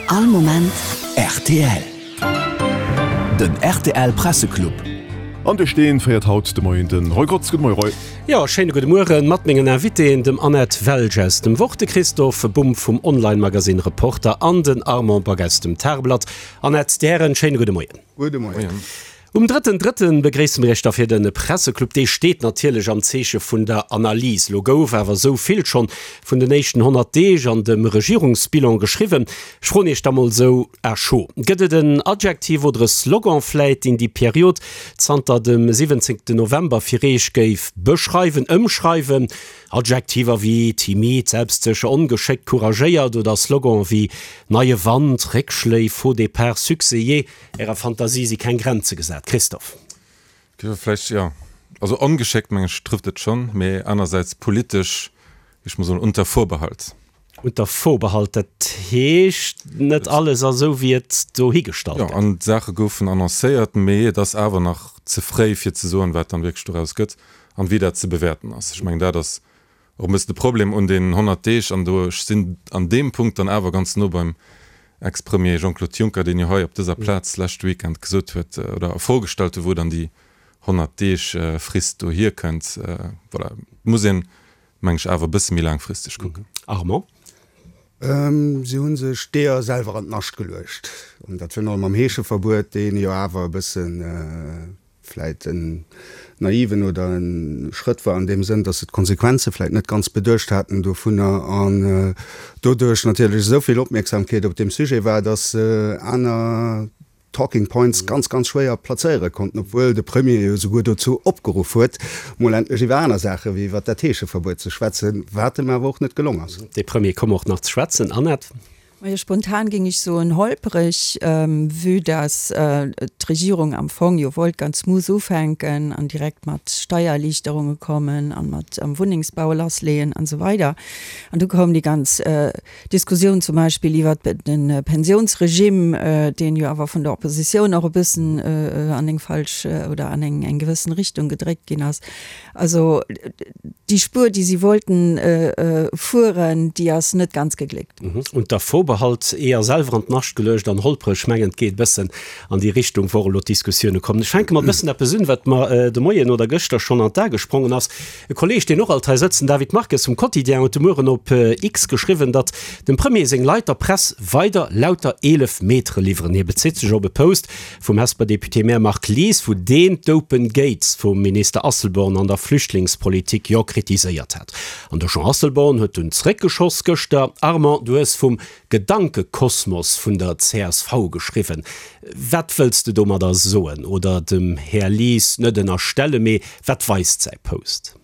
All Moment rtl. Den rtl Presseclub. An duerch deen féiert haut de Moien den Roy Grotz. Gudde Moie Roy. Jo, schéine gudde Mueren mat mengen Invitéen, dem Annette Welsch aus dem Wort, de Christophe Bumb vum Online-Magasinn Reporter an den Armand Back aus dem Tageblatt. Annette, déi Hären, schéine gudde Moien. Gudde Moien. Um drëtten Drëtten begréisse mir Iech da fir de Presseclub. Dee steet natierlech am Zeeche vun der Analys. Lo gouf awer esou vill schonn vun den éischten 100 Deeg an dem Regierungsbilan geschriwwen. Ech froen Iech da mol esou à chaud, Gëtt et en Adjektiv oder e Slogan vläit, deen déi Period zanter dem 17 November fir Iech géif beschreiwen, ëmschreiwen? Adjektiver wéi timid, selbstsécher, ongeschéckt, couragéiert oder Slogan wéi neie Wand, Réckschléi, Faux départ, Succès, jee, Ärer Fantasie si keng Grenze gesat, Christophe. Vläicht jo. Also ongeschéckt, meng ech, trëfft et schonn, mee anersäits politesch, géif ech mol soen, unter Vorbehalt. Unter Vorbehalt, dat heescht, net alles ass esou, wéi et dohigestallt gëtt. Jo, an d'Saache goufen annoncéiert, mee et ass awer nach ze fréi, fir ze soen, wat dann wierklech doraus gëtt an wéi dat ze bewäerten ass. Ech mengen, dat ass Och e bëssen de Problem un deenen 100 Deeg, an do, ech sinn an deem Punkt dann awer ganz no beim Ex-Premier Jean-Claude Juncker, deen jo hei op dëser Plaz leschte Weekend gesot huet oder a Fro gestallt huet, wou dann déi 100 Deeg Frist do hierkënnt. Voilà, et muss een, meng ech, awer e bësse méi laangfristeg kucken. Armand. Si hu sech d'Eeër selwer an d'Nascht geluecht, an dat virun allem mam Heescheverbuet, deen jo awer e bëssen, vläit en naiven oder e Schrëtt war an deem Sënn, dass se d'Konsequenze vläit net ganz beduecht haten dovunner an doduerch natierlech esou vill Opmierksamkeet op deem Sujet war, dass se aner Talking Points ganz, ganz schwéier plazéiere konnten, obwuel de Premier jo souguer dozou opgeruff huet, mol endlech iwwer aner Saache wéi iwwer dat Heescheverbuet ze schwätzen, wat em awer och net gelong ass. Dee Premier koum och nach ze schwätzen, Annette. Majo, spontan géing ech soen holpereg, vue dass d'Regierung am Fong jo wollt ganz smooth ufänken an direkt mat Steiererliichterunge kommen an mat am Wunnengsbau lassleeën an esou weider. An du koum déi ganz Diskussioun zum Beispill iwwert de Pensionsregime, deen jo awer vun der Oppositioun och e bëssen an eng falsch oder an eng gewëssen Richtung gedréckt ginn ass. Also déi Spuer, déi si wollten fueren, déi ass net ganz gegléckt. Unter Vorbehalt, Eeër selwer an d'Nascht geluecht an holpreg, mengen et geet e bëssen an déi Richtung, wou och elo d'Diskussioune kommen. Ech fänke mat e bëssen eppes un, wat mer de Moien oder gëschter schonn an d'A gesprongen ass. E Kolleeg, deen och alt hei sëtzt, den David Marques vum Quotidien, huet de Mueren op X geschriwwen, datt dem Premier seng Leit der Press weider lauter 11 Metere liwweren. Hie bezitt sech op e Post vum Hesper Député-Maire Marc Lies, wou deen d'Open Gates vum Minister Asselborn an der Flüchtlingspolitik jo kritiséiert hat. An de Jean Asselborn huet dunn zréckgeschoss gëschter. Armand, du hues vum Gedankekosmos vun der csv geschriwwen. Wat wëlls de domadder soen? Oder dem Här Lies net ënnerstellen, mee wat weist säi Post?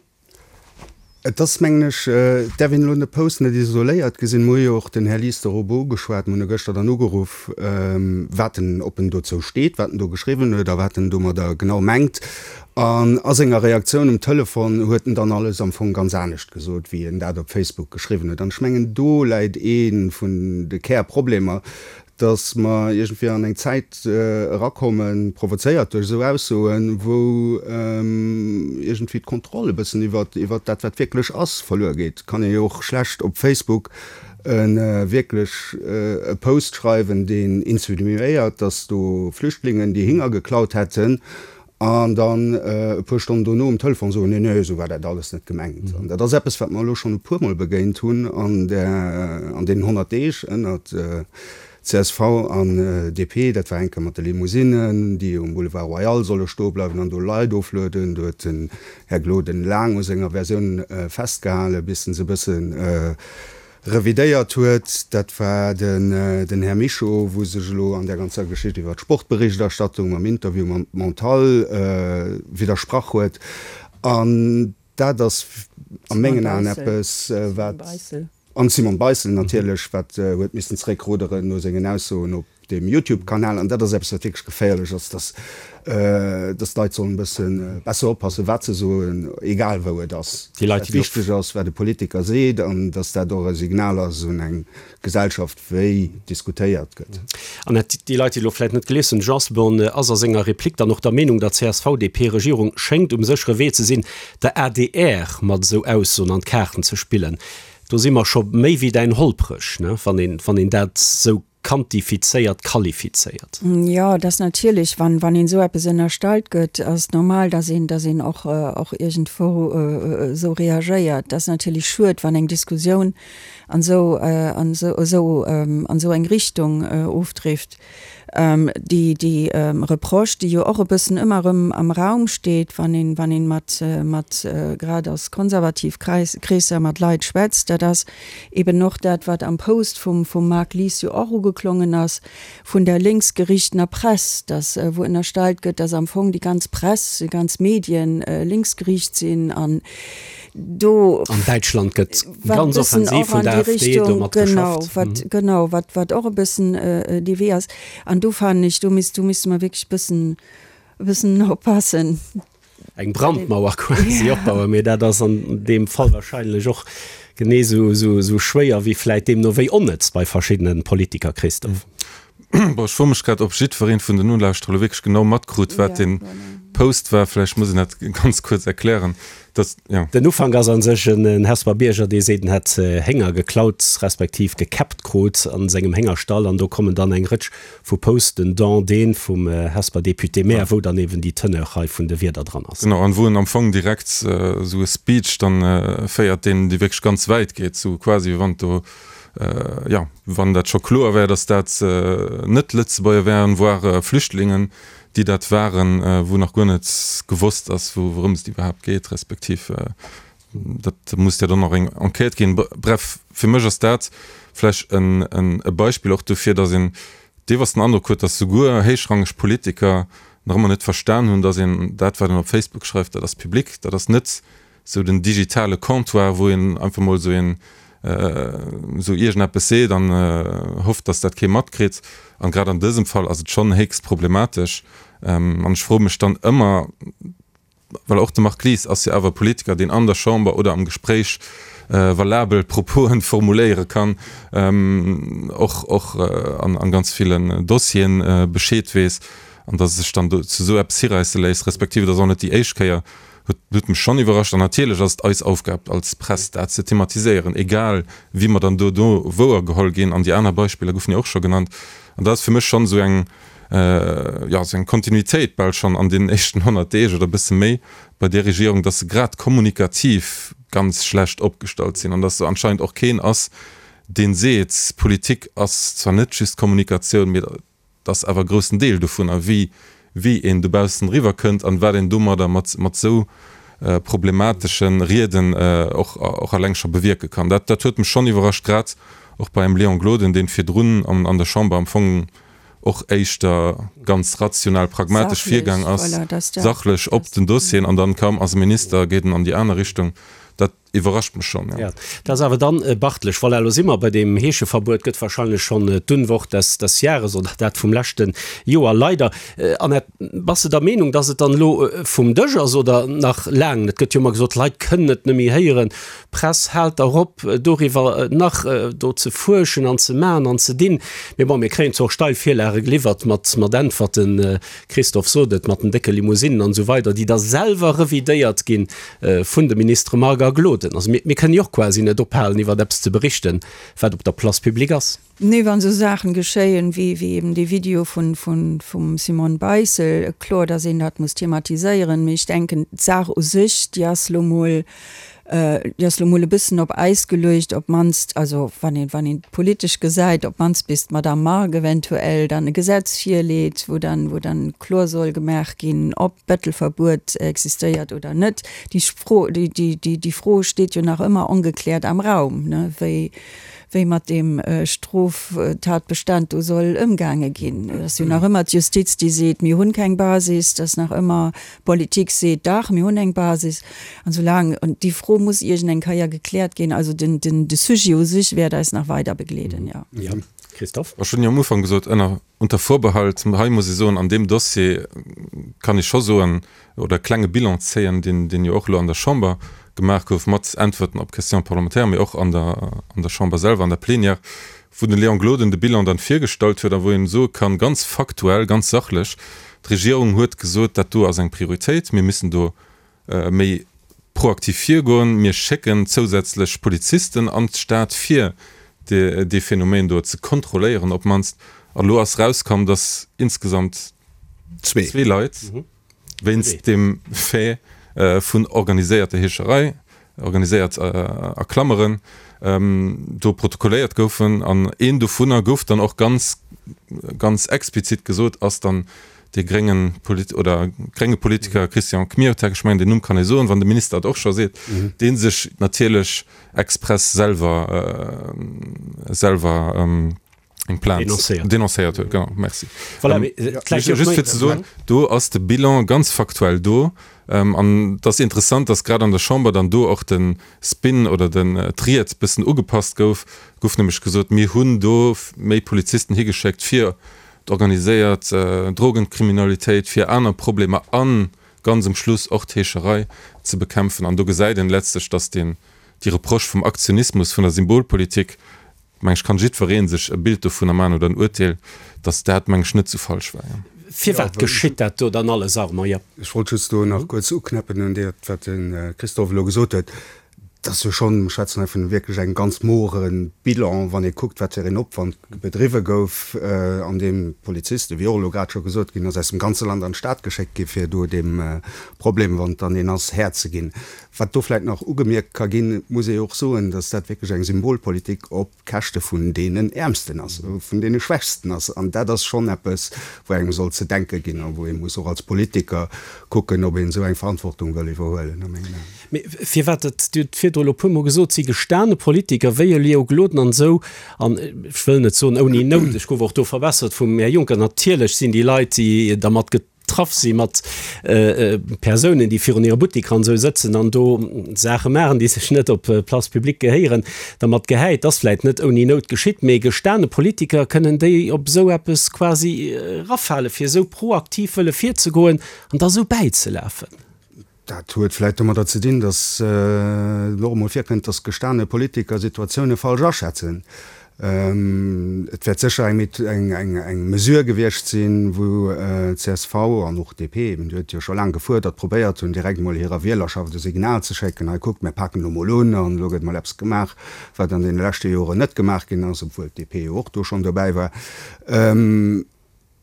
Et ass, mengen ech, et däerf een elo de Post net isoléiert gesinn. Mer hu jo och den Här Lies dorobber ugeschwat, mer hunn e gëschter dann ugeruff, wat en, ob en dozou steet, wat en do geschriwwen huet a wat en domadder genau mengt. An a senger Reaktioun um Telefon huet en dann alles am Fong ganz anescht gesot, wéi en dat op Facebook geschriwwen huet. An ech mengen, do läit ee vun de Kärproblemer, dass mer iergendwéi an eng Zäit erakommen, provozéiert duerch esou Aussoen, wou iergendwéi d'Kontroll e bëssen iwwer iwwer dat, wat wierklech ass, verluer geet. Et kann ee jo och schlecht op Facebook e wierklech e Post schreiwen, deen insinuéiert, dass do Flüchtlingen déi Hinger geklaut hätten, An dann e puer Stonnen dono um Telefon soen, nee, nee, esou war dat alles net gemengt. An dat ass eppes, wat mer elo schonn e puermol begéint hunn an där, an deenen 100 Deeg ënnert csv an DP. Dat war eng Kéier mat de Limousinnen, déi um Boulevard Royal solle stoe bleiwen an do Leit oflueden. Do huet den Här Gloden laang u senger Versioun festgehalen, bis en se e bëssen revidéiert huet, dat war den Här Mischo, wou sech elo an där ganzer Geschicht iwwer d'Sportberichterstattung mam Interview mam Montal widdersprach huet. An dat ass a mengen Aen eppes, wat, an d'Simone Beissel natierlech, wat huet missen zeréckruderen no sengen Aussoen op deem Youtube-Kanal, an dat ass eppes, wat wierklech geféierlech ass, dass, dass d'Leit sollen e bësse besser oppassen, wat se soen, egal wou et ass. Déi Leit, Wat wichteg ass, wat e Politiker seet, an dass dat och e Signal ass un eng Gesellschaft, wéi diskutéiert gëtt. An et, déi Leit, déi elo vläicht net gelies hunn, de Jean Asselborn ass a senger Replik dann och der Meenung, der CSV-DP-Regierung schéngt um séchere Wee ze sinn, der adr mat esou Aussoen an d'Kaarten ze spillen. Do si mer scho méi wéi däin holpreg, ne, wann een, wann een dat esou. quantifizéiert, qualifizéiert. Jo, et ass natierlech, wann, wann een esou eppes ënnerstallt gëtt, ass et normal, dass een, dass een och, och iergendwou esou reagéiert. Et ass natierlech schued, wann eng Diskussioun an esou, an esou, esou, an esou eng Richtung ofdrift. Déi, déi Reproche, déi jo och e bëssen ëmmer erëm am Raum steet, wann een, wann een mat, mat grad aus konservativ Kreis, Kreesser mat Leit schwätzt, dat ass eben och dat, wat am Post vum, vum Marc Lies jo och ugeklongen ass, vun der lénksgerichtener Press, dass, wou ënnerstallt gëtt, dass am Fong déi ganz Press, déi ganz Medien lénksgeriicht sinn an do. An Däitschland gëtt ganz offensiv vun der AfD domat geschafft. Wat, genau, wat, wat och e bëssen dee Wee ass. An do fannen ech, do misst, do misste mer wierklech e bëssen, e bëssen oppassen. Eng Brandmauer quasi opbauen, mee dat ass an deem Fall wahrscheinlech och genee esou, esou, esou schwéier wéi vläit deemno wéi onnëtz bei verschiddene Politiker, Christophe. Bon, ech froe mech grad, ob jiddwereen vun den Nolauschterer elo wierklech genau matkrut, wat dee Post war. Vläicht muss een dat ganz kuerz erklären, dass, jo. Den Ufank ass a sech en Hesper Bierger, dee seet, en hätt Hénger geklaut, respektiv gekäppt krut a sengem Héngerstall. An do kommen dann eng Rëtsch vu Posten, dont dee vum Hesper Député-maire, wou dann eben déi Teneur hei vun de Wierder dran ass. Genau, an wou en am Fong direkt esou e Speech dann féiert, deen, dee wierklech ganz wäit geet, sou quasi wéi wann et do jo, wann dat scho kloer wär, datt dat net Lëtzebuerger wären, voire Flüchtlingen, déi dat waren, wou nach guer net gewosst ass, wourëms et iwwerhaapt geet, respektiv dat muss jo dann och eng Enquête ginn. Bref, fir mech ass dat vläch e Beispill och dofir, datt een deelweis den Androck huet, datt souguer héichrangeg Politiker nach ëmmer net verstan hunn, datt een dat, wat een op Facebook schreift, dat ass public, dat ass net sou den digitale Comptoir, wou een einfach mol sou een sou iergendeppes seet an hofft, dass dat kee matkritt. An grad an dësem Fall ass et schonn héchst problematesch. An ech froe mech dann ëmmer, well och de Marc Lies ass jo awer e Politiker, deen an der Chamber oder am Gespréich valabel Proposen formuléiere kann, och och an ganz villen Dossieren Bescheed weess, an dass e sech dann do zu sou eppes hiräisse léisst, respektiv et ass och net déi éischt Kéier, Huet mech schonn iwwerrascht. An natierlech ass et eis Aufgab als Press, dat ze thematiséieren, egal wéi mer dann dono wouergeholl ginn. An déi aner Beispiller goufen jo och scho genannt. An dat ass fir mech schonn esou eng, jo, esou eng Kontinuitéit bal schonn an deenen éischten 100 Deeg oder e bësse méi bei där Regierung, dass se grad kommunikativ ganz schlecht opgestallt sinn an dass do anscheinend och keen ass, dee seet, Politik ass zwar net just Kommunikatioun, mee Et ass awer e groussen Deel dovunner, wéi wéi een dobaussen eriwwer kënnt an wat een domadder mat mat esou problematesche Rieden och och alleng scho bewierke kann. Dat dat huet mech schonn iwwerrascht, grad och bei engem Léon Gloden, deen virdrun an an der Chamber am Fong och éischter ganz rational, pragmatesch virgaang ass, sachlech op den Dossieren, an dann kaum ass e Minister, geet en an déi aner Richtung. Dat. Iwwerrascht mech schon, jo. Dat ass awer dann beachtlech. Voilà, elo si mer bei deem Heescheverbuet, gëtt wahrscheinlech schonn d'Unwort des, des Jahres oder dat vum leschte Joer, leider. Annette, bass de der Meenung, dass et dann elo vum Dësch ass oder nach laang net? Gëtt jo ëmmer gesot, d'Leit kënnen et net méi héieren, Press, haalt der op, doriwwer nach do ze fuerschen an ze man an ze dinn. Mee bon, mir kréien zwar och steil Virlage geliwwert mat, mat Äntwerten, Christophe sot et, mat den décke Limousinen an esou weider, déi da selwer revidéiert ginn vun de Ministere Margue a Gloden. Also mir, mir kënnen jo och quasi net ophalen, iwwer eppes ze berichten, wat op der Place publique ass. Nee, wann esou Saachen geschéien, wéi, wéi eben dee Video vun, vun, vum Simone Beissel, kloer, dass een dat muss thematiséieren. Mee ech denken, d'Saach u sech, déi ass elo mol, déi ass elo mol e bëssen op Äis geluecht, op d'mannst, also wann een, wann een et politesch gesäit, op d'mannst bis d'Madame Margue eventuell dann e Gesetz virleet, wou dann, wou dann kloer soll gemaach ginn, ob d'Bettelverbuet existéiert oder net. Déi Fro, déi, déi, déi, déi Fro steet jo nach ëmmer ongekläert am Raum, ne, wéi, wéi mat deem Stroftatbestand do soll ëmgaange ginn. Et ass jo nach ëmmer d'Justiz, déi seet, mir hunn keng Basis, et ass nach ëmmer d'Politik seet, dach, mir hunn eng Basis. An soulaang, an déi Fro muss iergend eng Keier gekläert ginn, also den, den, de Sujet u sech wäert eis nach weider begleeden, jo. Jo, Christophe? Ech hunn jo am Ufank gesot, ënner, unter Vorbehalt, hei muss ee soen, an deem Dossier kann ee scho soen oder e klenge Bilan zéien, deen, deen jo och elo an der Chamber gemaach gouf mat Äntwerten op Questions parlementaires, mee och an der, an der Chamber selwer, an der Plénière, wou de Léon Gloden de Bilan dann virgestallt huet a wou een soe kann, ganz faktuell, ganz sachlech, d'Regierung huet gesot, dat do ass eng Prioritéit, mir müssen do méi proaktiv virgoen, mir schécken zousätzlech Polizisten an d'Stad, fir. Dee Phänomen do ze kontrolléieren op d'mannst. An elo ass erauskomm, datt insgesamt zwee Leit wéinst deem Fait vun organiséierter Heescherei, organiséiert a Klammeren, do protokolléiert goufen. An een dovunner gouf dann och ganz, ganz explizit gesot, ass dann dee grénge Polit oder grénge Politiker Christian Kmiotek, ech mengen deen Numm kann ee soen, wann de Minister et och scho seet, dee sech natierlech express selwer selwer eng Plainte Denoncéiert. denoncéiert huet. Genau, merci. Voilà, mee et läit jo Just fir ze soen, do ass de Bilan ganz faktuell do. An et ass interessant, datt grad an der Chamber dann do och de Spin oder den d'Ried bëssen ugepasst gouf. Gouf nämlech gesot, mir hunn do méi Polizisten higeschéckt fir d'organiséiert Drogenkriminalitéit, fir aner Problemer a ganz um Schluss och d'Heescherei ze bekämpfen. An do gesäit een letztlech, datt deen, déi Reproche vum Aktionismus, vun der Symbolpolitik, meng ech, kann jiddweree sech e Bild dovunner maachen oder en Urteel, datt dat, meng ech, net sou falsch war. Firwat geschitt dat do dann alles, Armand? Jo. Ech wollt just do nach kuerz uknäppen un dat, wat de Christophe elo gesot huet. Et ass jo schonn, mir schwätzen hei vun wierklech engem ganz mogere Bilan, wann ee kuckt, wat fir een Opwand bedriwwe gouf, an deem Polizisten, wéi och elo grad scho gesot ginn ass, aus dem ganze Land an d'Stad geschéckt gi fir do deem Problem, wann et dann een ass, Här ze ginn. Wat do vläicht nach ugemierkt ka ginn, et muss ee jo och soen, datt dat wierklech eng Symbolpolitik op Käschte vun deenen Äermsten ass, vun deene Schwächsten ass. An dat ass schonn eppes, wou engem soll ze denke ginn a wou ee muss och als Politiker kucken, ob een esou eng Verantwortung wëll iwwerhuelen, a mengen Aen. Mee firwat dat, Dir hutt virdru elo e puermol gesot, si gestane Politiker wéi e Léo Gloden an esou, an ech wëll net soen ouni Nout, ech gouf och do verbessert vum Här Juncker, natierlech sinn déi Leit, déi dermat getraff si mat Persounen, déi virun hire Butteker an esou sëtzen an do Saache maachen, déi sech net op d'Place publique gehéieren, dermat gehäit. Ass vläit net ouni Nout geschitt, mee gestane Politiker, kënnen déi op esou eppes quasi erafale fir esou proaktiv wëlle virzegoen an da esou bäizelafen? Dat huet vläit domadder ze dinn, datt et och emol virkënnt, datt gestane Politiker Situatioune falsch aschätzen. Et wäert sécher eng Mesure gewiescht sinn, wou csv an och DP, eben, déi huet jo scho laang gefuerdert, probéiert hunn, direkt emol hirer Wielerschaft e Signal ze schécken, Hei kuckt, mir paken elo mol un an elo gëtt mol eppes gemaach, wat an deene leschte Joren net gemaach ginn ass, obwuel d'DP jo och do schonn dobäi war.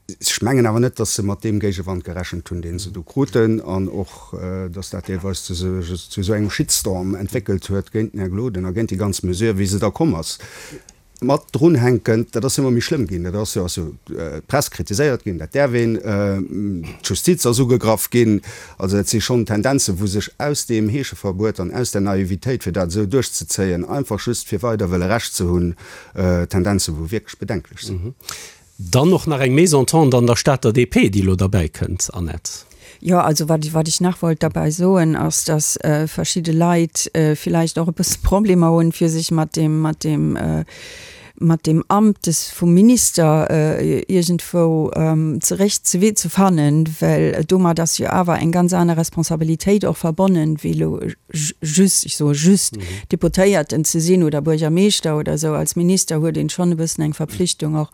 Ech mengen awer net, datt se mat deem Géigewand gerechent hunn, dee se do kruten, an och, datt dat deelweis zu esou engem Shitstorm entwéckelt huet géint den Här Gloden a géint déi ganz Mesure, wéi se da komm ass. Mat drunhänkend, dat ass jo ëmmer méi schlëmm ginn, dat ass jo, ass jo d'Press kritiséiert ginn, dat däerf een, d'Justiz ass ugegraff ginn. Also dat si schonn Tendenzen, wou sech aus deem Heescheverbuet an aus der Naivitéit, fir dat esou duerchzezéien, einfach just fir weider wëlle Recht ze hunn, Tendenzen, wou wierklech bedenklech sinn. Dann och nach eng Mésentente an der Stater DP, déi elo derbäi kënnt, Annette. Jo, also wat, wat ech nach wollt derbäi soen, ass, dass verschidde Leit villäicht och e bësse Problemer hunn, fir sech mat deem, mat deem, mat deem Amt des vum Minister iergendwou zerécht ze wee ze fannen, well domat ass jo awer eng ganz aner Responsabilitéit och verbonnen, wéi elo just, ech soe just, Deputéierten ze sinn oder Buergermeeschter oder esou. Als Minister huet een schonn e bëssen eng Verpflichtung och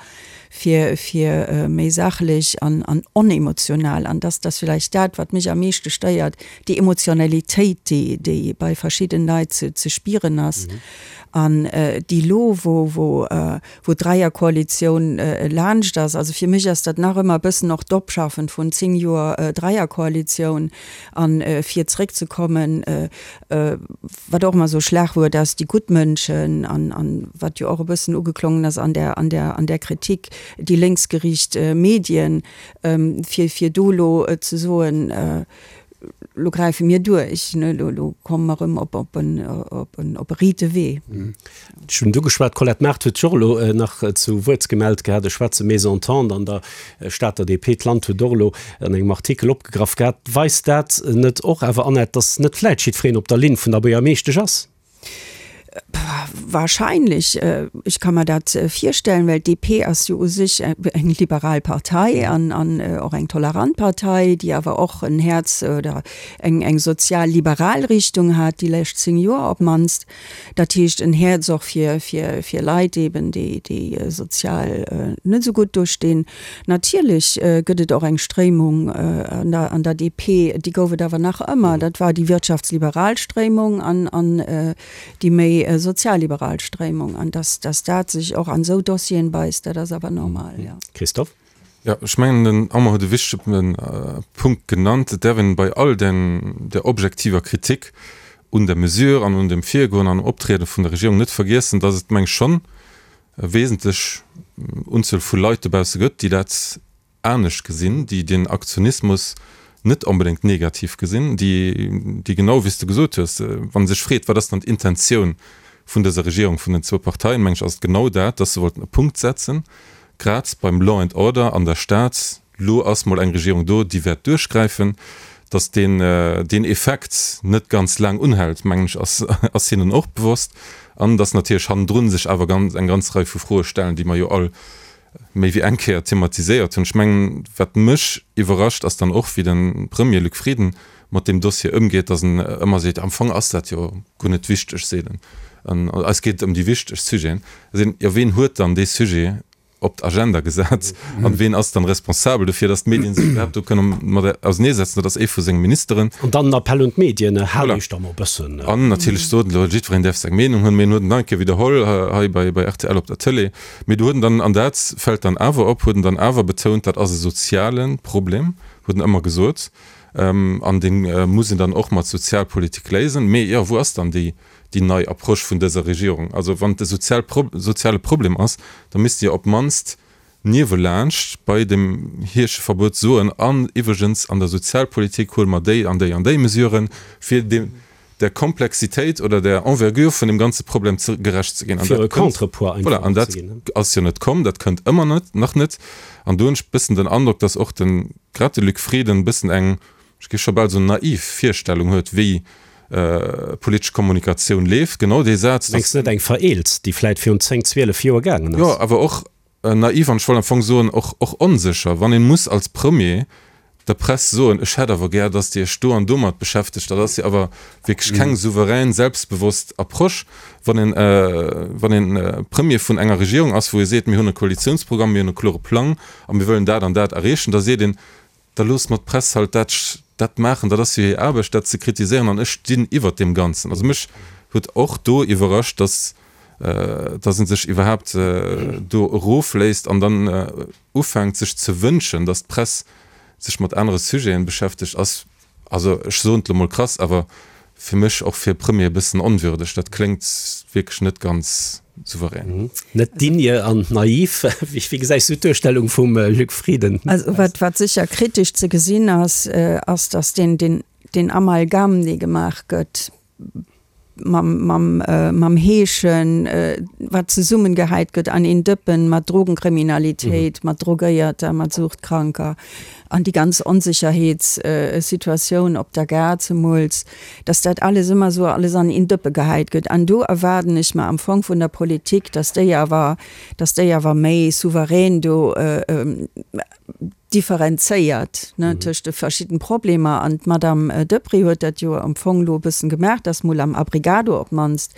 fir, fir méi sachlech an, an onemotional, an dass dass villäicht dat, wat mech am meeschte stéiert, déi Emotionalitéit, déi, déi bei verschidden Leit ze, ze spieren ass an déi lo, wou, wou, wou d'Dräierkoalitioun laanscht ass. Also fir mech ass dat nach ëmmer e bëssen och d'Opschaffen vun 10 Joer Dräierkoalitioun. An fir zréckzekommen, wat och ëmmer esou e Schlagwuert ass, déi gutt Mënschen, an, an wat jo och e bëssen ugeklongen ass an der, an der, an der Kritik, déi lénksgeriicht Medien, fir, fir do elo ze soen, Lo gräife mir duerch, ne, lo, lo komme mer erëm op, op en, op en, op e riite Wee. Ech hunn et ugeschwat, d'Colette Mart huet sech och elo nach zu Wuert gemellt gehat. Ech schwätze Mésentente an der Stater DP. D'Land huet och elo an engem Artikel opgegraff gehat. Weist dat net och awer, Annette, datt net vläit jiddwereen op der Linn vun der Buergermeeschtesch ass? Wahrscheinlech. Ech ka mer dat virstellen, well d'DP ass jo u sech eng liberal Partei an och eng tolerant Partei, déi awer och en Häerz oder eng sozial-liberal Richtung hat déi lescht 10 Joer op d'mannst. Dat heescht en Häerz och fir fir Leit eben, déi déi sozial net esou gutt do stinn. Natierlech gëtt et och eng Stréimung an der an der DP, déi gouf et awer nach ëmmer, dat war déi wirtschaftsliberal Stréimung an an déi méi. méi sozialliberal Stréimung. An dass, dass dat sech och an esou Dossieren beisst, dat ass awer normal, jo. Christophe? Jo, ech mengen, den Armand huet e wichtege Punkt genannt. Et däerf een bei all den, der objektiver Kritik un der Mesure an un dem Virgoen an Optriede vun der Regierung net vergiessen, dass et, meng ech, schonn e wesentlech Unzuel vu Leit dobausse gëtt, déi dat anescht gesinn, déi den Aktionismus net onbedéngt negativ gesinn, déi, déi genau wéi s de gesot hues, wa sech freet, wat ass dann d'Intentioun vun dëser Regierung, vun den zwou Parteien, meng ech, ass et genau dat, dass se wollten e Punkt setzen, grad beim Law and Order an der Stad, Lo ass mol eng Regierung do, déi wäert duerchgräifen. Dass deen, deen Effekt net ganz laang unhält, mengen ech, ass, ass hinnen och bewosst. An dass natierlech hannendrun sech awer ganz, eng ganz Rei vu Froe stellen, déi mer jo all méi wéi eng Kéier thematiséiert hunn. Ech mengen, wat mech iwwerrascht, ass dann och, wéi de Premier Luc Frieden mat deem Dossier ëmgeet, dass en ëmmer seet, am Fong ass dat jo guer net wichteg, seet en, an eis geet et ëm déi wichteg Sujeten. Da seet en, jo ween huet dann dee Sujet op d'Agenda gesat an ween ass dann responsabel dofir, dass d'Medien sech iwwerhaapt do kënne mat auserneesetzen? Dat ass ee vu senge Ministeren. An dann en Appell un d'Medien, Haalt Iech da mol e bëssen. An natierlech sot en elo, jiddwereen däerf seng Meenung hunn, mee en huet en nach eng Kéier widderholl hei bei rtl op der Tëlee. Mee do huet en dann, an dat fält dann awer op, huet en dann awer betount, dat ass e soziale Problem, huet en ëmmer gesot, an dee muss een dann och mat Sozialpolitik léisen. Mee jo, wou ass dann déi, déi nei Approche vun dëser Regierung? Also wann et e sozial, soziale Problem ass, da misst se jo op d'mannst niewelaanscht bei dem Heescheverbuet soen, an iwwregens an der Sozialpolitik huele mer déi an déi an déi Mesuren, fir deem, der Komplexitéit oder der Envergure vun dem ganze Problem ze, gerecht ze ginn. An Fir dat e kënnt, Contrepoids einfach voilà, an dat ze ginn. ass jo net komm, dat kënnt ëmmer net, nach net. An do hunn ech e bëssen den Androck, dass och de, grad de Luc Frieden e bëssen eng, ech géif scho bal soen, naiv Virstellung huet, wéi politesch Kommunikatioun leeft. Genau dee Saz, dass. Mengs de net eng vereelzt, déi vläit virun 10, 12 Joer gaangen ass? Jo, awer och naiv an ech wollt am Fong soen, och, och onsécher, wann een muss als Premier der Press soen, ech hätt awer gär, dass Dir Iech do an domat beschäftegt, dat ass jo awer wierklech keng souverän, selbstbewosst Approche, wann een, wann een Premier vun enger Regierung ass, wou ee seet, mir hunn e Koalitionsprogramm, mir hunn e klore Plang a mir wëllen dat an dat erreechen, da seet een, da loosst mer d'Press halt dat, dat maachen, dat ass jo hir Aarbecht, dat ze kritiséieren an ech stinn iwwert deem Ganzen. Also mech huet och do iwwerrascht, dass, dass e sech iwwerhaapt do erofléisst an dann ufänkt sech ze wënschen, dass d'Press sech mat anere Sujeten beschäftegt, ass, also ech soen et elo mol krass, awer fir mech och fir e Premier e bëssen onwürdeg. Dat kléngt wierklech net ganz souverän. Net digne an naiv. Wéi gesäis du d'Duerstellung vum Luc Frieden? Also wat, wat sécher kritesch ze gesinn ass, ass, datt deen, deen, deen Amalgam, dee gemaach gëtt mam, mam, mam Heeschen, wat zesummengehäit gëtt an een Dëppen mat Drogenkriminalitéit, mat Drogéierter, mat Suchtkranker an déi ganz Onsécherheetssituatioun op der Gare zemools, dass dat alles ëmmer esou alles an een Dëppe gehäit gëtt. An do erwaarden ech mer am Fong vun der Politik, dass déi awer, dass déi awer méi souverän do differenzéiert, ne, tëscht de verschidden Problemer. An d'Madame Deprez huet dat jo am Fong elo e bëssen gemaach, dass mol am Abrigado op d'mannst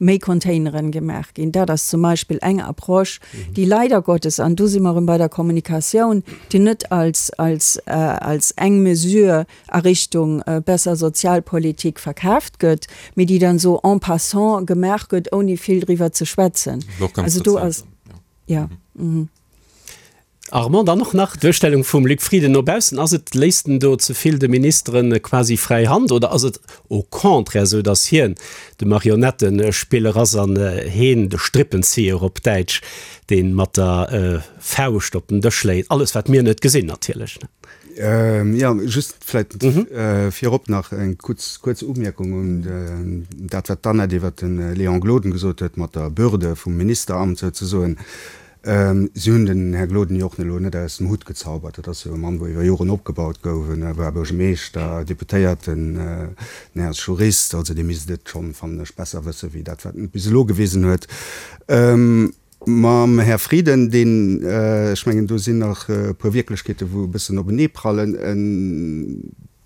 méi Containeren gemaach ginn. Dat ass zum Beispill eng Approche, déi leider Gottes, an do si mer erëm bei der Kommunikatioun, déi net als, als, als eng Mesure a Richtung besser Sozialpolitik verkaaft gëtt, mee déi dann esou en passant gemaach gëtt, ouni vill driwwer ze schwätzen. Also do ass, jo. Armand, dann och nach d'Duerstellung vum Luc Frieden no baussen. Ass et, léisst en do ze vill de Ministeren quasi fräi Hand oder ass et au contraire esou, datt hien de Marionettespiller ass an heen de Strippenzieher op Däitsch, dee mat der Fauscht op den Dësch schléit? Alles wat mir net gesinn natierlech. Jo, just vläit virop nach eng kuerz, kuerz Umierkung un dat wat d'Annette iwwert de Léon Gloden gesot huet mat der Bürde vum Ministeramt souzesoen. Si hunn den Här Gloden jo och elo net aus dem Hutt gezaubert. Dat ass jo e Mann, wou iwwer Joren opgebaut gouf. En war Buergermeeschter, Deputéierten, den Här ass Jurist. Also dee misst et schonn, fannen ech, besser wësse wéi dat, wat en bis elo gewisen huet. Mam Här Frieden, deen, ech mengen, do sinn nach e puer Wierklechkeete wou e bëssen openeeprallen, e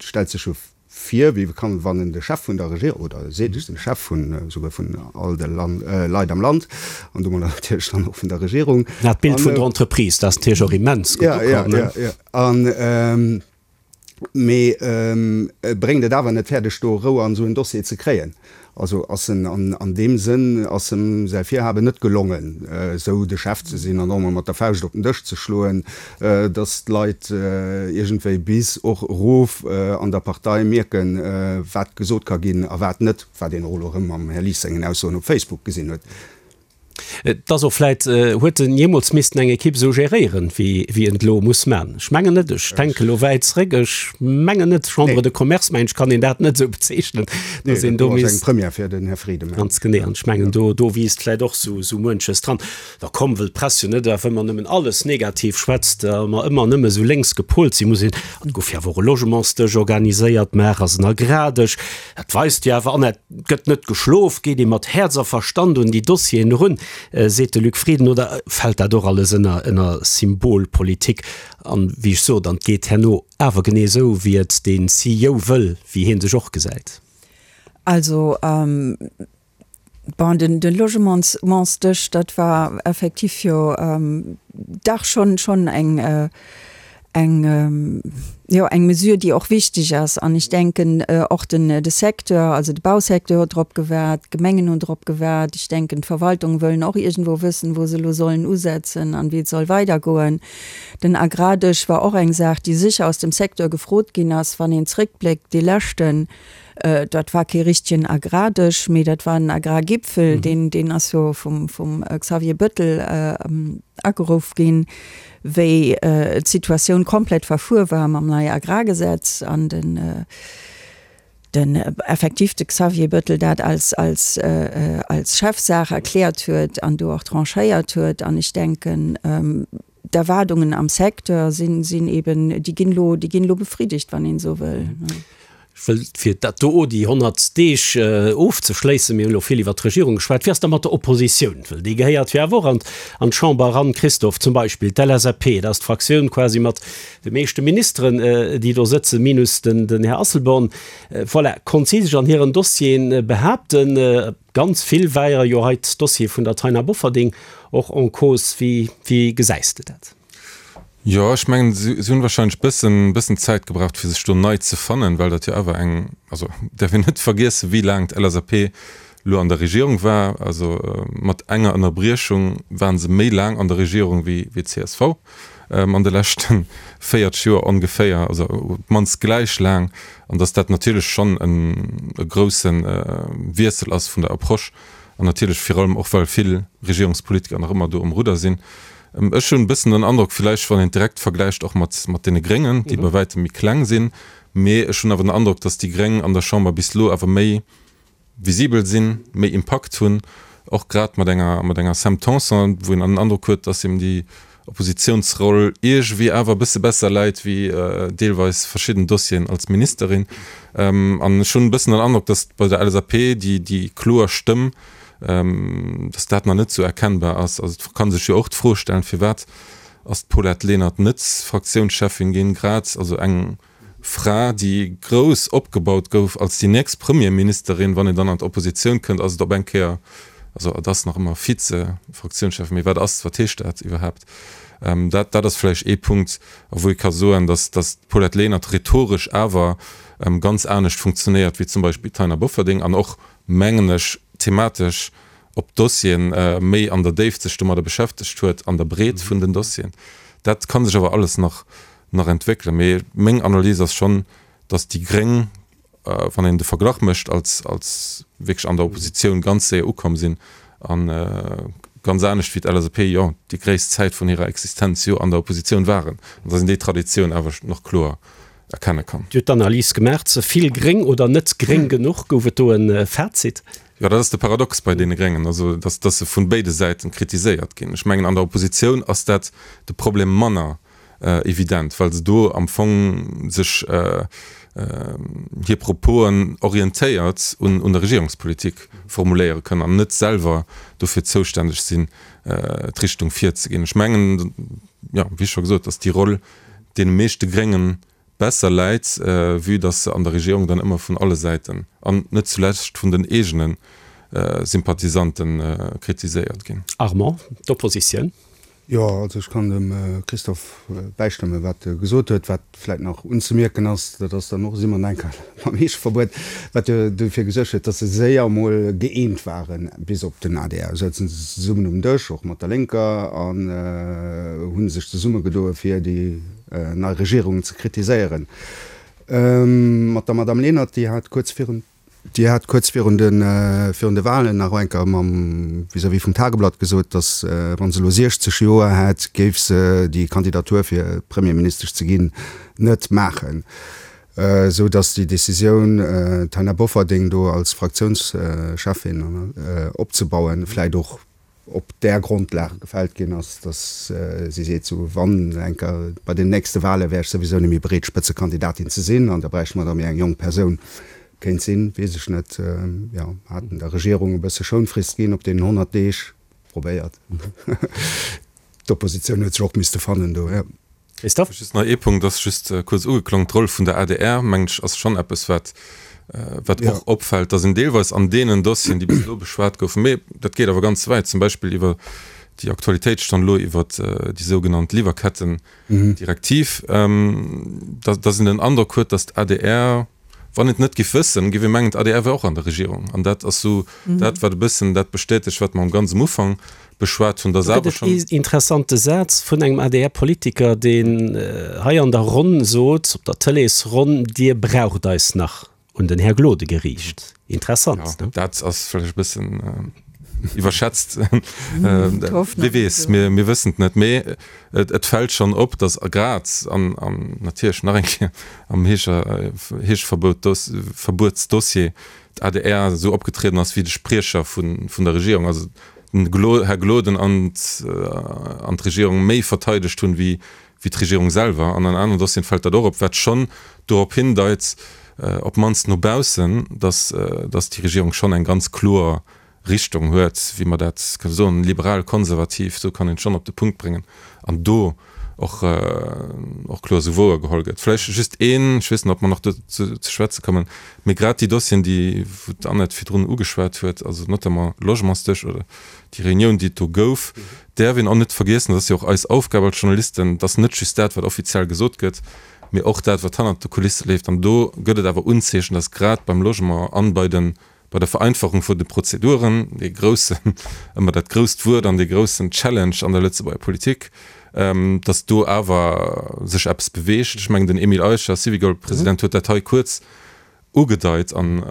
stellt sech jo vir, wéi kann, wann en de Chef vun der Regierung, oder e seet, ech sinn de Chef vun, esouguer vun all de Leit am Land, an domadder natierlech dann och vun der Regierung. Dat Bild vun der Entreprise, dat ass natierlech och immens gutt ukomm, ne? Jo, jo, jo. An. Mee e bréngt et awer net fäerdeg, do Rou an esou en Dossier ze kréien. Also ass en an deem Sënn ass em säi Virhaben net gelongen, esou de Chef ze sinn an och emol mat der Fauscht op den Dësch ze schloen, datt d'Leit iergendwéi bis och erof an der Partei mierken, wat gesot ka ginn a wat net, wat een och elo erëm am Här Lies sengen Aussoen op Facebook gesinn huet. Et ass och vläit, huet en jeemools missten eng Ekipp esou geréieren, wéi wéi en et elo muss man? Ech mengen net. Ech denke elo wäit zréck. Ech mengen net. Chambre de Commerce, mengen ech, kann een dat net esou bezeechnen, Nee, dass een dat do do ass eng misst. Première fir den Här Frieden, mengen Ganz genee. An ech mengen, do do wiisst vläit och esou esou muenches dran. Da komm, wëll d'Press jo net awer ëmmer nëmmen alles negativ schwätzt a mer ëmmer nëmme esou lénks gepolt sinn, muss een, an et gouf jo awer och e Logementsdësch organiséiert, maach ass en Agrardësch, Dat weist jo awer, an et gëtt net geschlof, geet ee mat Häerz a Verstand un déi Dossieren erun, seet de Luc Frieden, oder fält dat och alles ënner ënner Symbolpolitik? An, wéi ech sot, an et geet herno awer genee esou, wéi et dee CEO wëll, wéi hie sech och gesäit. Also, Bon, den, den Logementsdësch, dat war effektiv jo dach schonn, schonn eng, eng, jo, eng Mesure, déi och wichteg ass. An ech denken och den, de Secteur, also de Bausecteur huet drop gewaart, d'Gemengen hunn drop gewaart. Ech denken, d'Verwaltungen wëllen och iergendwou wëssen, wou se elo sollen usetzen an wéi et soll weidergoen. Den Agrardësch war och eng Saach, déi sécher aus dem Secteur gefrot ginn ass, wann een zréckbléckt, dee leschten, Dat war kee richtegen Agrardësch, mee dat war en Agrargipfel, deen, deen ass jo vum, vum Xavier Bettel ageruff ginn, wéi d'Situatioun komplett verfuer war mam neie Agrargesetz an den, den effektiv de Xavier Bettel dat als, als, als Chefsaach erkläert huet an do och tranchéiert huet. An ech denken, D'Erwaardungen am Secteur sinn, sinn eben, déi ginn elo, déi ginn elo befriddegt, wann een esou wëll. Ech wëll, fir dat do, déi 100 Deeg ofzeschléissen, mir hunn elo vill iwwert d'Regierung geschwat, wéi ass da mat der Oppositioun? Well déi gehéiert jo awer och an, an d'Chamber eran. Christophe, zum Beispill d'LSAP, dat ass d'Fraktioun quasi mat de meeschte Ministeren, déi do sëtzen, minus den, den Här Asselborn. Voilà, konnt si sech an hiren Dossieren behaapten? Ganz vill war jo hei d'Dossier vun der Taina Bofferding och en cause. Wéi, wéi gesäis de dat? Jo, ech mengen, si hunn wahrscheinlech bëssen, bëssen Zäit gebraucht, fir sech do nei ze fannen, well dat jo awer eng, also däerf een net vergiessen, wéi laang d'LSAP elo an der Regierung war. Also mat enger Ënnerbriechung ware se méi laang an der Regierung wéi, wéi d'CSV an de leschte 40 Joer ongeféier, also op d'mannst gläich laang. An datt dat natierlech schonn e grousse Wiessel ass vun der Approche an natierlech virun allem och, well vill Regierungspolitiker nach ëmmer do um Rudder sinn. Ech hunn e bëssen den Androck, villäicht wann een et direkt vergläicht och mat mat deene Gréngen, déi bei wäitem méi kleng sinn, mee ech hunn awer den Androck, datt déi Gréng an der Chamber bis elo awer méi visibel sinn, méi Impakt hunn, och grad mat enger mat enger Sam Tanson, wou een an den Androck huet, dass him déi Oppositionsroll iergewéi awer e bësse besser läit wéi deelweis verschidden Dossieren als Ministerin. An ech hunn e bëssen den Androck, dass bei der LSAP déi déi kloer Stëmm, dass dat nach net esou erkennbar ass. Also et kann sech jo och d'Fro stellen, firwat ass d'Paulette Lenert net Fraktiounscheffin ginn, grad also eng Fra, déi grouss opgebaut gouf als déi nächst Premierministerin, wann een dann an d'Oppositioun kënnt, ass et op eng Kéier, also et ass nach ëmmer Vize-Fraktiounschef, mee wat ass, wat heescht dat iwwerhaapt? Dat, dat ass vläicht ee Punkt, a wou ee ka soen, datt, datt d'Paulette Lenert rhetoresch awer ganz anescht funktionéiert wéi zum Beispill d'Taina Bofferding an och, mengen ech, thematesch op d'Dossieren méi an der Déift sech domadder beschäftegt huet, an der Breet vun den Dossieren. Dat ka sech awer alles nach nach entwéckelen. Mee meng Analys ass schonn, datt déi Gréng, wann een de Verglach mécht, als, als wierklech an der Oppositioun ganz séier ukomm sinn a ganz anescht wéi d'LSAP, jo, déi gréisst Zäit vun hirer Existenz jo an der Oppositioun waren, an datt een déi Traditioun awer nach kloer erkenne kann. Dir hutt d'Analys gemaach, ze vill gréng oder net gréng genuch? Gouf et do e Fazit? Jo, dat ass de Paradox bei deene Gréngen, also datt, datt se vun béide Säiten kritiséiert ginn. Ech mengen, an der Oppositioun ass dat de Problem manner. evident, well se do am Fong sech hir Proposen orientéiert un der Regierungspolitik formuléiere kënnen an net selwer dofir zoustänneg sinn, d'Richtung virzeginn. Ech mengen, jo, wéi scho gesot, datt déi Roll deene meeschte Grénge besser läit, vue datt se an der Regierung dann ëmmer vun alle Säiten an net zulescht vun den eegene Sympathisanten kritiséiert ginn. Armand, d'Oppositioun. Jo, also ech kann dem Christophe bäistëmmen, wat e gesot huet. Wat vläit nach unzemierken ass, dat ass dann och, si mer nach eng Kéier beim Heescheverbuet, wat jo dofir gesuergt huet, datt se séier emol gëeent waren, bis op den adr. Souzen se zesummen um Dësch, och mat der Lénker, an hu sech zesummegedoe fir déi nei Regierung ze kritiséieren. Mat der Madame Lenert, déi hat kuerz virun. Dir hat kuerz virun de virun de Wahlen nach eng Kéier mam vis-à-vis vum Tageblatt gesot, datt wa se elo 60 Joer hätt, géif se déi Kandidatur fir Premierministesch ze ginn net maachen. Esou datt déi Decisioun d'Taina Bofferding do als Fraktiounscheffin opzebauen, vläit och op där Grondlag gefällt ginn ass, datt si seet, sou wann eng Kéier bei den nächste Wahle wär ech souwisou net méi bereet Spëtzekandidatin ze sinn an da bräichte mer da méi eng jonk Persoun. Kéint sinn, weess ech net. Jo, haten der Regierung e bësse Schounfrist ginn op deenen 100 Deeg. Probéiert. D'Oppositioun huet sech och misste fannen do, jo. Christophe? Just nach ee Punkt, ass just kuerz ugeklongen, D'Roll vun der adr, mengen ech, ass schonn eppes, wat, wat och opfält, dass een deelweis an deenen Dossieren, déi bis elo beschwat goufen, mee dat geet awer ganz wäit, zum Beispill iwwer déi Aktualitéitsstonn elo iwwert déi sougenannt Liwwerkettendirektiv, dass, dass een den Androck huet, dass d'ADR, wann een et net giff wëssen, giff ee mengen, d'ADR wär och an der Regierung. An dat ass sou dat, wat e bëssen dat bestätegt, wat mer am ganz um Ufank beschwat hunn, dass awer schonn. Do gëtt et ee interessante Saz vun engem ADR-Politiker, deen hei an der Ronn sot, op der Tëleesronn, Dir braucht eis nach, un den Här Gloden geriicht. Interessant, ne? Jo, dat ass vläicht e bëssen iwwerschätzt. Wie weess, mir, mir wëssen et net. Mee et, et fält schonn op, dass grad an, an natierlech nach eng Kéier am Heescher, Heescheverbuetsdossier d'ADR esou opgetrieden ass wéi de Spriecher vun, vun der Regierung. Also den Här Gloden an d'Regierung méi verteidegt hunn, wéi d'Regierung selwer. An an aneren Dossieren fält dat och op, wat schonn dorop hindeit, op d'mannst no baussen, datt déi Regierung schonn eng ganz kloer Richtung huet, wéi mer dat kënne soen, liberal-konservativ, esou kann een et schonn op de Punkt bréngen, an do och och kloer esou wouergeholl gëtt. Vläicht just een, ech weess net, ob mer nach dozou ze schwätze kommen, mee grad déi Dossieren, déi wou d'Annette virdrun ugeschwat huet, also notamment Logementsdësch oder déi Reunioun, déi et do gouf, däerf een och net vergiessen, dat ass jo och eis Aufgab als Journalisten, dass net just dat, wat offiziell gesot gëtt, mee och dat, wat hannert de Kulisse leeft. An do gëtt et awer Unzeechen, dass grad beim Logement an bei de Bei der Vereinfachung vun de Prozeduren, dee groussen, ëmmer dat grousst Wuert an dee groussen Challenge an der Lëtzebuerger Politik, datt do awer sech eppes beweegt. Ech mengen, den Emile Eicher, Syvicol-President, huet dat hei kuerz ugedeit an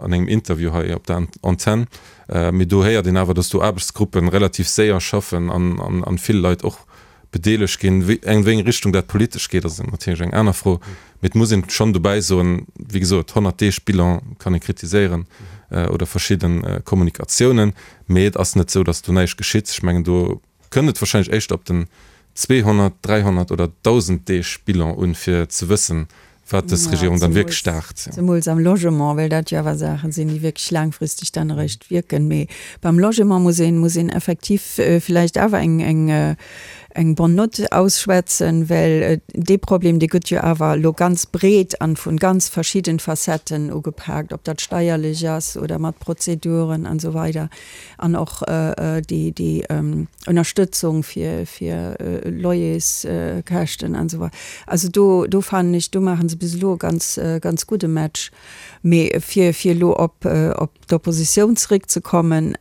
engem Interview hei op der Antenn. Mee do héiert een awer, datt do Aarbechtsgruppen relativ séier schaffen an vill Leit och bedeelegt ginn. An wéi eng Richtung dat politesch geet, ass natierlech eng aner Fro. Mee et muss een schonn dobäi soen, wéi gesot, 100 Deeg Bilan kann ee kritiséieren oder verschidde Kommunikatiounen, mee et ass net esou, datt do näischt geschitt. Ech mengen, do kënnt et warscheinlech éischter op den 200, 300 oder 1.000 Deeg Bilan un, fir ze wëssen, wat dës Regierung dann wierklech start. Zemools am Logement, well dat jo awer Saachen sinn, déi wierklech laangfristeg dann eréischt wierken. Mee beim Logement muss een, muss een effektiv villäicht awer eng, eng, eng bonne note ausschwätzen, well dee Problem, dee gëtt jo awer elo ganz breet an vun ganz verschidden Facetten ugepaakt, ob dat steierlech ass oder mat Prozeduren an esou weider. An och déi, déi Ënnerstëtzung fir, fir Loyerskäschten an esou weider. Also do, do fannen ech, do maache se bis elo e ganz, ganz gudde Match. Mee fir, fir elo op, op d'Oppositioun zeréckzekommen,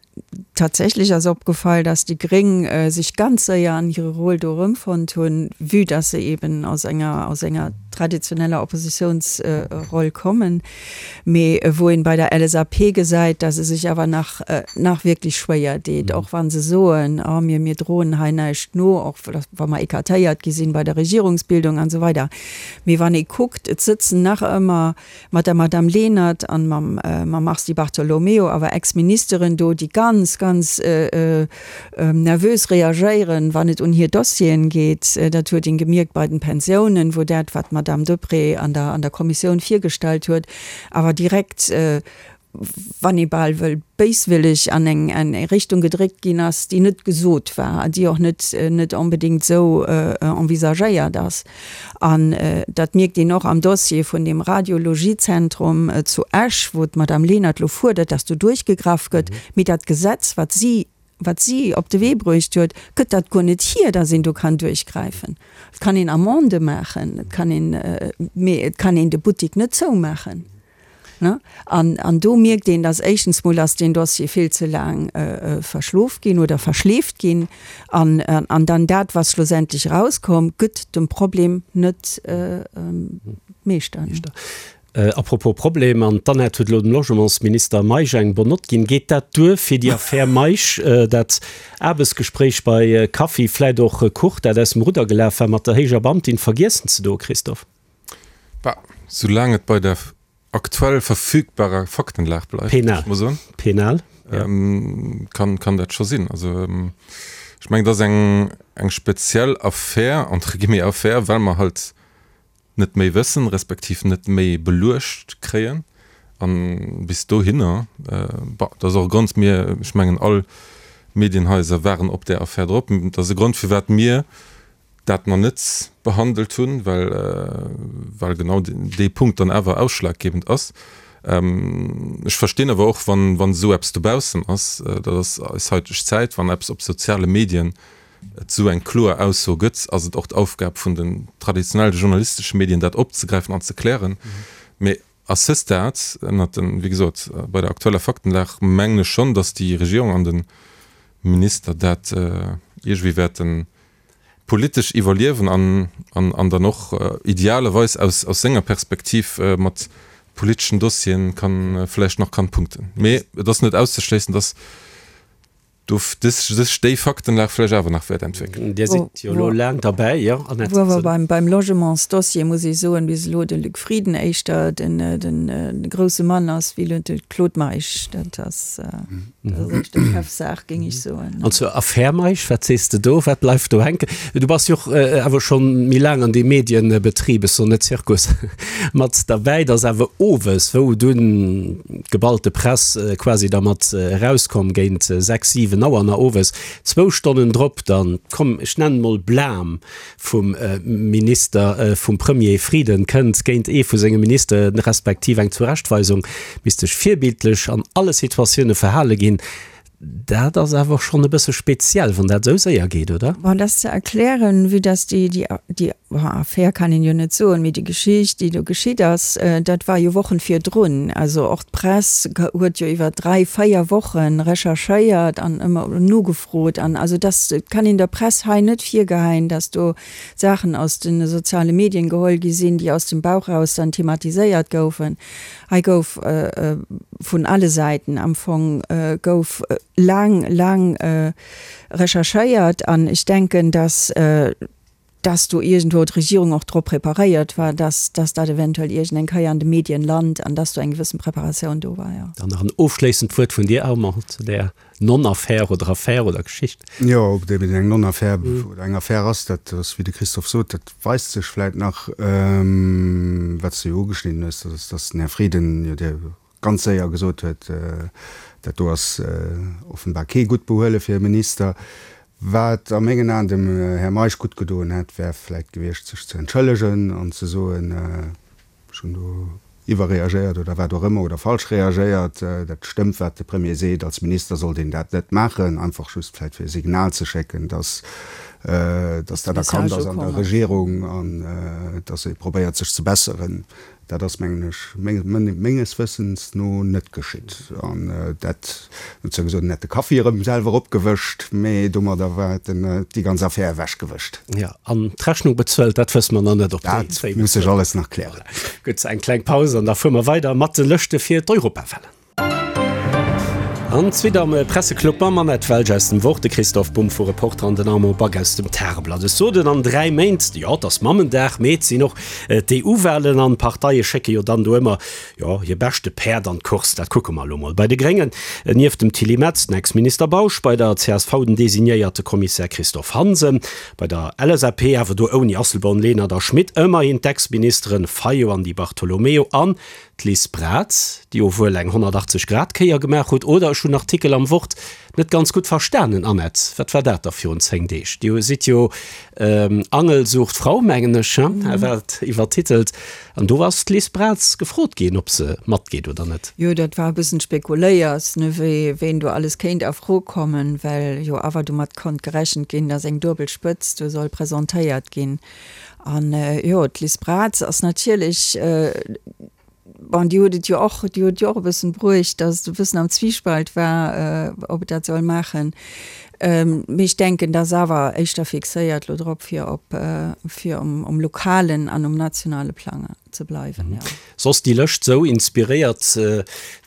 Tatsächlech ass opgefall, dass déi Gréng sech ganz séier an hire Rôle do erëmfonnt hunn, vue dass se eben aus enger, aus enger traditioneller Oppositiounsroll kommen. Mee wou een bei der LSAP gesäit, dass se sech awer nach, nach wierklech schwéier deet, och wa se soen, oh mir, mir droen hei näischt no, och wa mer écartéiert gi sinn bei der Regierungsbildung an esou weider. Mee wann ee kuckt, et sëtzen nach ëmmer mat der Madame Lenert an mam, mam Mars Di Bartolomeo awer Ex-Ministeren do, déi ganz, ganz nervös reagéieren, wann et un hir Dossieren geet. Dat huet een gemierkt bei den Pensiounen, wou dat, wat d'Madame Deprez an der, an der Kommissioun virgestallt huet, awer direkt, wann ee bal wëll, béiswilleg an eng, an eng Richtung gedréckt ginn ass, déi net gesot war a déi och net, net onbedéngt esou envisagéiert ass. An dat mierkt een och am Dossier vun deem Radiologiezentrum zu Esch, wou d'Madame Lenert elo fuerdert, dass do duerchgegraff gëtt. Mee dat Gesetz, wat si. wat si op de Wee bruecht huet, gëtt dat guer net hier, dass een do kann duerchgräifen. Et kann een Amendë maachen, et kann een, mee et kann een de Buttik net zoumaachen. Ne? An, an do mierkt een, dass éischtens mol ass deen Dossier vill ze laang verschlof ginn oder verschleeft ginn an, an dann dat, wat schlussendlech erauskomm, gëtt dem Problem net Meeschter. Ne? A propos Problem, an d'Annette huet elo dem Logementsminister Meisch eng bonne Note ginn. Geet dat duer fir déi Affär Meisch, dat Aarbechtsgespréich bei Kaffi, vläit och Kuch, dat aus dem Rudder gelaf war, mat der héijer Beamtin vergiessen ze doen, Christophe? Bah, soulaang et bei der aktuell verfügbarer Faktenlag bleift, géif ech mol soen. Penal, ja. Kann, kann dat scho sinn. Also, ech mengen, et ass eng, eng speziell Affär, entre guillemets Affär, well mer halt net méi wëssen, respektiv net méi beluecht kréien. A bis dohinner, bah, dat ass och e Grond, mir, ech mengen all Medienhaiser waren op där Affär drop, dat ass e Grond firwat mir dat mer net behandelt hunn, well, well genau dee Punkt dann awer ausschlaggebend ass. Ech verstinn awer och, wann, wann esou eppes dobaussen ass, dat ass eis haiteg Zäit, wann eppes op soziale Medien et esou eng kloer Ausso gëtt, ass et och d'Aufgab vun den traditionelle journalistesche Medien, dat opzegräifen an ze klären. Mee à ce stade, ënnert den, wéi gesot, bei der aktueller Faktenlag, mengen ech schonn, datt déi Regierung an de Minister dat iergendwéi wäerten politesch iwwerliewen an, an dann och idealerweis aus, aus senger Perspektiv mat politeschen Dossieren kann, vläicht nach kann punkten. Mee et ass net auszeschléissen, datt do sech déi Faktenlag vläicht awer nach wäert entwéckelen. Dir sidd jo elo laang derbäi, jo, Annette? Wou awer beim, beim Logementsdossier, muss ech soen, bis elo de Luc Frieden éischter den, den grousse Mann ass wéi elo de Claude Meisch. Dat ass, dat ass éischter Chefsaach, géing ech soen. An zur Affär Meisch, wat sees de do? Wat bleift do hänken? Du bass jo och awer schonn méi laang an deem Medienbetrib, ech soen net Zirkus, mat derbäi. Et ass awer owes, wou dunn d'geballte Press quasi da mat erauskomm géint 6, 7 Auer na owes, zwou Stonnen drop dann, komm ech nennen mol Blam vum Minister, vum Premier Frieden kënnt géint ee vu senge Ministere respektiv eng Zurechtweisung, misst sech virbildlech an alle Situatioune verhale ginn. Dat ass awer schonn e bësse speziell, wann dat esou séier geet, oder? Bon, dat ass ze erklären, vue dass déi, déi, déi, bon, Affär kann een jo net soen, mee déi Geschicht, déi do geschitt ass, dat war jo Wochen virdrun. Also och d'Press huet jo iwwer dräi, véier Woche recherchéiert an ëmmer nogefrot. An also dass, et kann een der Press hei net virgeheien, dass do Saachen aus de soziale Medien geholl gi sinn, déi aus dem Bauch raus dann thematiséiert goufen. Hei gouf vun alle Säiten am Fong gouf laang, laang recherchéiert an ech denken, dass, dass do iergendwou d'Regierung och drop preparéiert war, dass, dass dat eventuell iergendeng Kéier an de Medien lant an dass do eng gewëssen Preparatioun do war, jo. Dann nach en ofschléissend Wuert vun dir, Armand, zu där Non-Affär oder Affär oder Geschicht. Jo, ob et eben eng Non-Affär oder eng Affär ass, dat ass, wéi de Christophe sot, dat weist sech vläit nach. Wat s de jo ugeschnidden hues, dat ass, datt den Här Frieden jo dir ganz séier gesot huet, dat do ass offenbar kee gutt Behuele fir e Minister. Wat a mengen Aen dem Här Meisch gutt gedoen hätt, wär vläit gewiescht, sech ze entschëllegen an ze soen, Ech hunn do iwwerreagéiert oder wat och ëmmer oder falsch reagéiert. Dat stëmmt, wat de Premier seet. Als Minister sollt een dat net maachen, einfach just vläicht fir e Signal ze schécken, dass, dass dat erkannt ass an der Regierung an dass ee probéiert, sech ze besseren. Dat ass, mengen ech, menges Wëssens no net geschitt. An dat, huet zwar gesot, en hätt de Kaffi erëm selwer opgewëscht, mee domadder war en déi ganz Affär ewechgewëscht. Jo, an d'Rechnung bezuelt, dat wësse mer nach net, ob déi Dat muss sech alles nach klären. Voilà. Gutt, eng kleng Paus an da fuere mer weider mat de Lëschte fir d'Europawahlen. An d'Suite am Presseclub mam Annette Welsch aus dem Wort, de Christoph Bumb vu Reporter an den Armand Back aus dem Tageblatt. Ech sot et, an 3 Méint, jo, et ass Mammendag, mee et sinn och d'EU-Wahlen an d'Parteie schécke jo dann do ëmmer Jo, hir beschte Päerd an d'Course, dat kucke mer elo mol. Bei de Gréngen, nieft dem Tilly Metz, den Ex-Minister Bausch, bei der csv den designéierte Kommissär Christophe Hansen, bei der LSAP, awer do ouni Asselborn, Lenert a Schmit, ëmmerhin d'Ex-Ministeren Fayot an Di Bartolomeo an D'Liz Braz, déi jo wuel eng 180 Grad Kéier gemaach huet, oder ech hunn Artikel am Wort net ganz gutt verstanen. Annette, wat war dat da virun 10 Deeg? Dir sidd jo Angel sucht Frau, mengen ech, he, war et iwwertitelt, an do ass d'Liz Braz gefrot ginn, ob se matgeet oder net. Jo, dat war e bëssen spekuléiers, ne, wéi ween do alles kéint a Fro kommen, well jo awer domat konnt gerechent ginn, datt eng duebel Spëtzt do soll presentéiert ginn. An jo, d'Liz Braz ass natierlech, bon, déi huet et jo och, déi huet jo och e bëssen bruecht, datt et e bëssen am Zwiespalt war, ob et dat soll maachen. Mee ech denken, dat ass awer éischter fixéiert elo drop, fir op, fir um lokalen an um nationale Plang ze bleiwen, jo. Soss déi Lëscht sou inspiréiert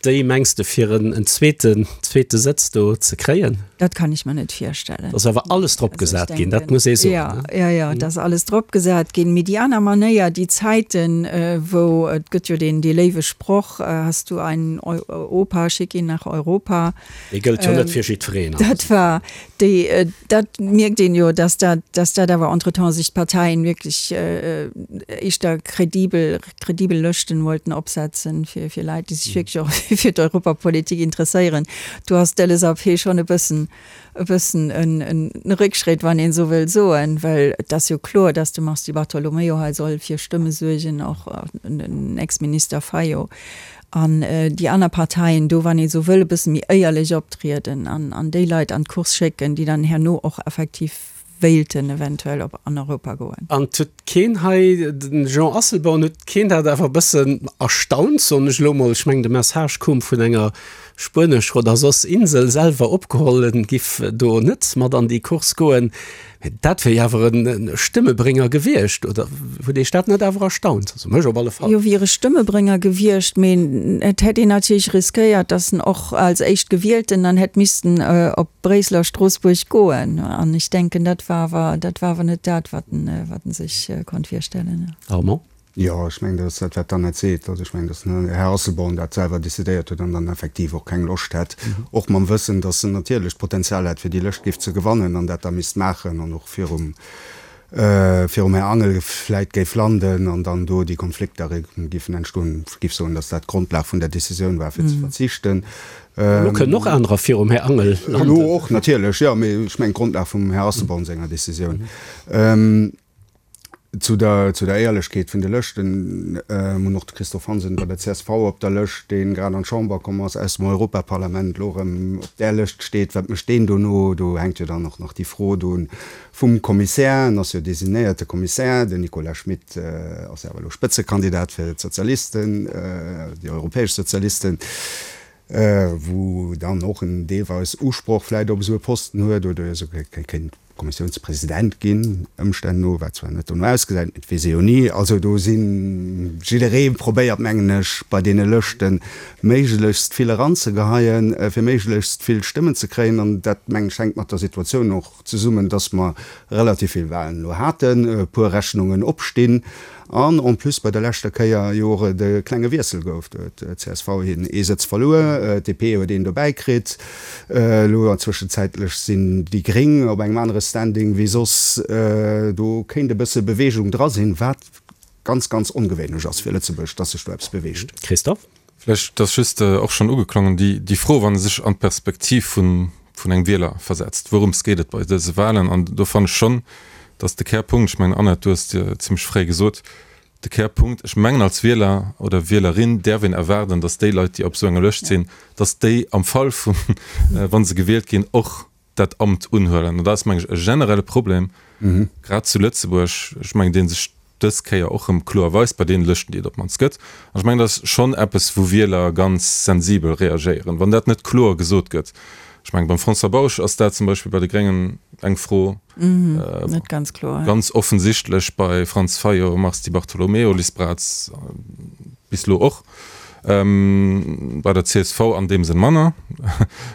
déi, mengs de, fir en zweeten zweete Sëtz do ze kréien? Dat kann ech mer net virstellen. Et ass awer alles drop gesat ginn, dat muss ee soen. Jo, jo, jo, et ass alles drop gesat ginn. Mee déi aner Manéier, déi Zäiten, wou, et gëtt jo deen dee léiwe Sproch, Hast du einen Opa, schick ihn nach Europa. Dee gëllt jo net fir jiddwereen. Dat war déi, dat mierkt een jo, dass dat, dass dat awer entretemps sech d'Parteien wierklech éischter kredibel, kredibel Lëschten wollten opsetzen fir, fir Leit, déi sech wierklech och fir d'Europapolitik interesséieren. Do ass d'LSAP schonn e bëssen, e bëssen en, en Réckschrétt, wann een esou wëll soen, well et ass jo kloer, dass de Mars Di Bartolomeo hei soll fir Stëmme suergen, och den Ex-Minister Fayot. An déi aner Parteien do, wann ee sou wëll, e bësse méi éierlech optrieden an an déi Leit an d'Course schécken, déi dann herno och effektiv wéilten eventuell op an Europa goen. An et huet keen hei, de Jean Asselborn, huet keen dat awer e bëssen erstaunt, soen ech elo mol, ech mengen de Message koum vun enger spuenescher oder soss Insel, selwer opgeholl, en giff do net mat an déi Course goen. Mä dat wier jo awer e Stëmmebrénger gewiescht, oder huet Iech dat net awer erstaunt? Also mech op alle Fall. Jo, wier e Stëmmebrénger gewiescht, mee et hätt een natierlech riskéiert, datt en och als Éischtgewielten dann hätt missten op Bréissel a Stroossbuerg goen. An ech denken, dat war awer, dat war awer net dat, wat en, wat en sech konnt virstellen. Armand? Jo, ech mengen, dat ass dat, wat d'Annette seet. Also ech mengen, datt den Här Asselborn dat selwer decidéiert huet an dann effektiv och keng Loscht hätt, och mam Wëssen, datt en natierlech d'Potenzial hätt, fir déi Lëscht géif ze gewannen an dat da misst maachen an och virum, virum Här Angel vläit géif landen an dann do déi Konflikter géifen entstoen. Ech géif soen, datt dat d'Grondlag vun der Decisioun war, fir ze verzichten. Elo kënnen och anerer virum Här Angel landen. Elo och, natierlech, jo, mee ech mengen d'Grondlag vum Här Asselborn senger Decisioun. Zu der, zu der Éierlechkeet vun de Lëschten, Mir hunn och de Christophe Hansen bei der csv op der Lëscht, dee grad an d'Chamber komm ass aus dem Europaparlament, elo erëm op där Lëscht steet. Wat mécht deen dono? Do hänkt jo dann och nach déi Fro do vum Kommissär. En ass jo designéierte Kommissär. Den Nicolas Schmit ass jo awer elo Spëtzekandidat fir d'Sozialisten, déi europäesch Sozialisten, wou dann och en deelweis Usproch vläicht op esou e Posten huet oder esouguer kéint Kommissiounspresident ginn, Ëmstänn no, wat zwar net dono ausgesäit, mee et weess ee jo ni. Also do sinn, jidderee probéiert, mengen ech, bei deene Lëschte méiglechst vill eranzegeheien, fir méiglechst vill Stëmmen ze kréien. An dat, mengen ech, hänkt mat der Situatioun och zesummen, dass mer relativ vill Wahlen elo haten, e puer Rechnungen opstinn an en plus bei der leschter Kéier jo och et e klenge Wiessel gouf. Do huet csv hien ee Sëtz verluer, d'DP huet een dobäi kritt. Elo zwëschenzäitlech sinn déi Gréng op engem anere Standing wéi soss. Do kéint e bësse Beweegung dra sinn, wat ganz, ganz ongewéinlech ass fir Lëtzebuerg, dass sech do eppes beweegt. Christophe? Vläicht ass just och schonn ugeklongen déi Fro, wann ee sech an d'Perspektiv vun engem Wieler versetzt, wourëms geet et bei dëse Wahlen? An do fannen ech schonn, dass de Kärpunkt, ech mengen Annette, du hues et zimlech fréi gesot, de Kärpunkt, ech mengen als Wieler oder Wielerin däerf een erwaarden, dass déi Leit, déi op esou enger Lëscht sinn, dass déi am Fall vun, wa se gewielt ginn, och dat Amt unhuelen. An dat ass, meng ech, e generelle Problem, grad zu Lëtzebuerg, ech mengen, dee sech dës Kéier och erëm kloer weist bei deene Lëschten, déi et op d'mannst gëtt. An ech mengen, dat ass schonn eppes, wou Wieler ganz sensibel reagéieren, wann dat net kloer gesot gëtt. Ech mengen, beim François Bausch ass dat zum Beispill bei de Gréngen eng Fro, Net ganz kloer. Ganz offensichtlech bei Franz Fayot, Mars Di Bartolomeo, Liz Braz bis elo och. Bei der csv an deem Sënn manner.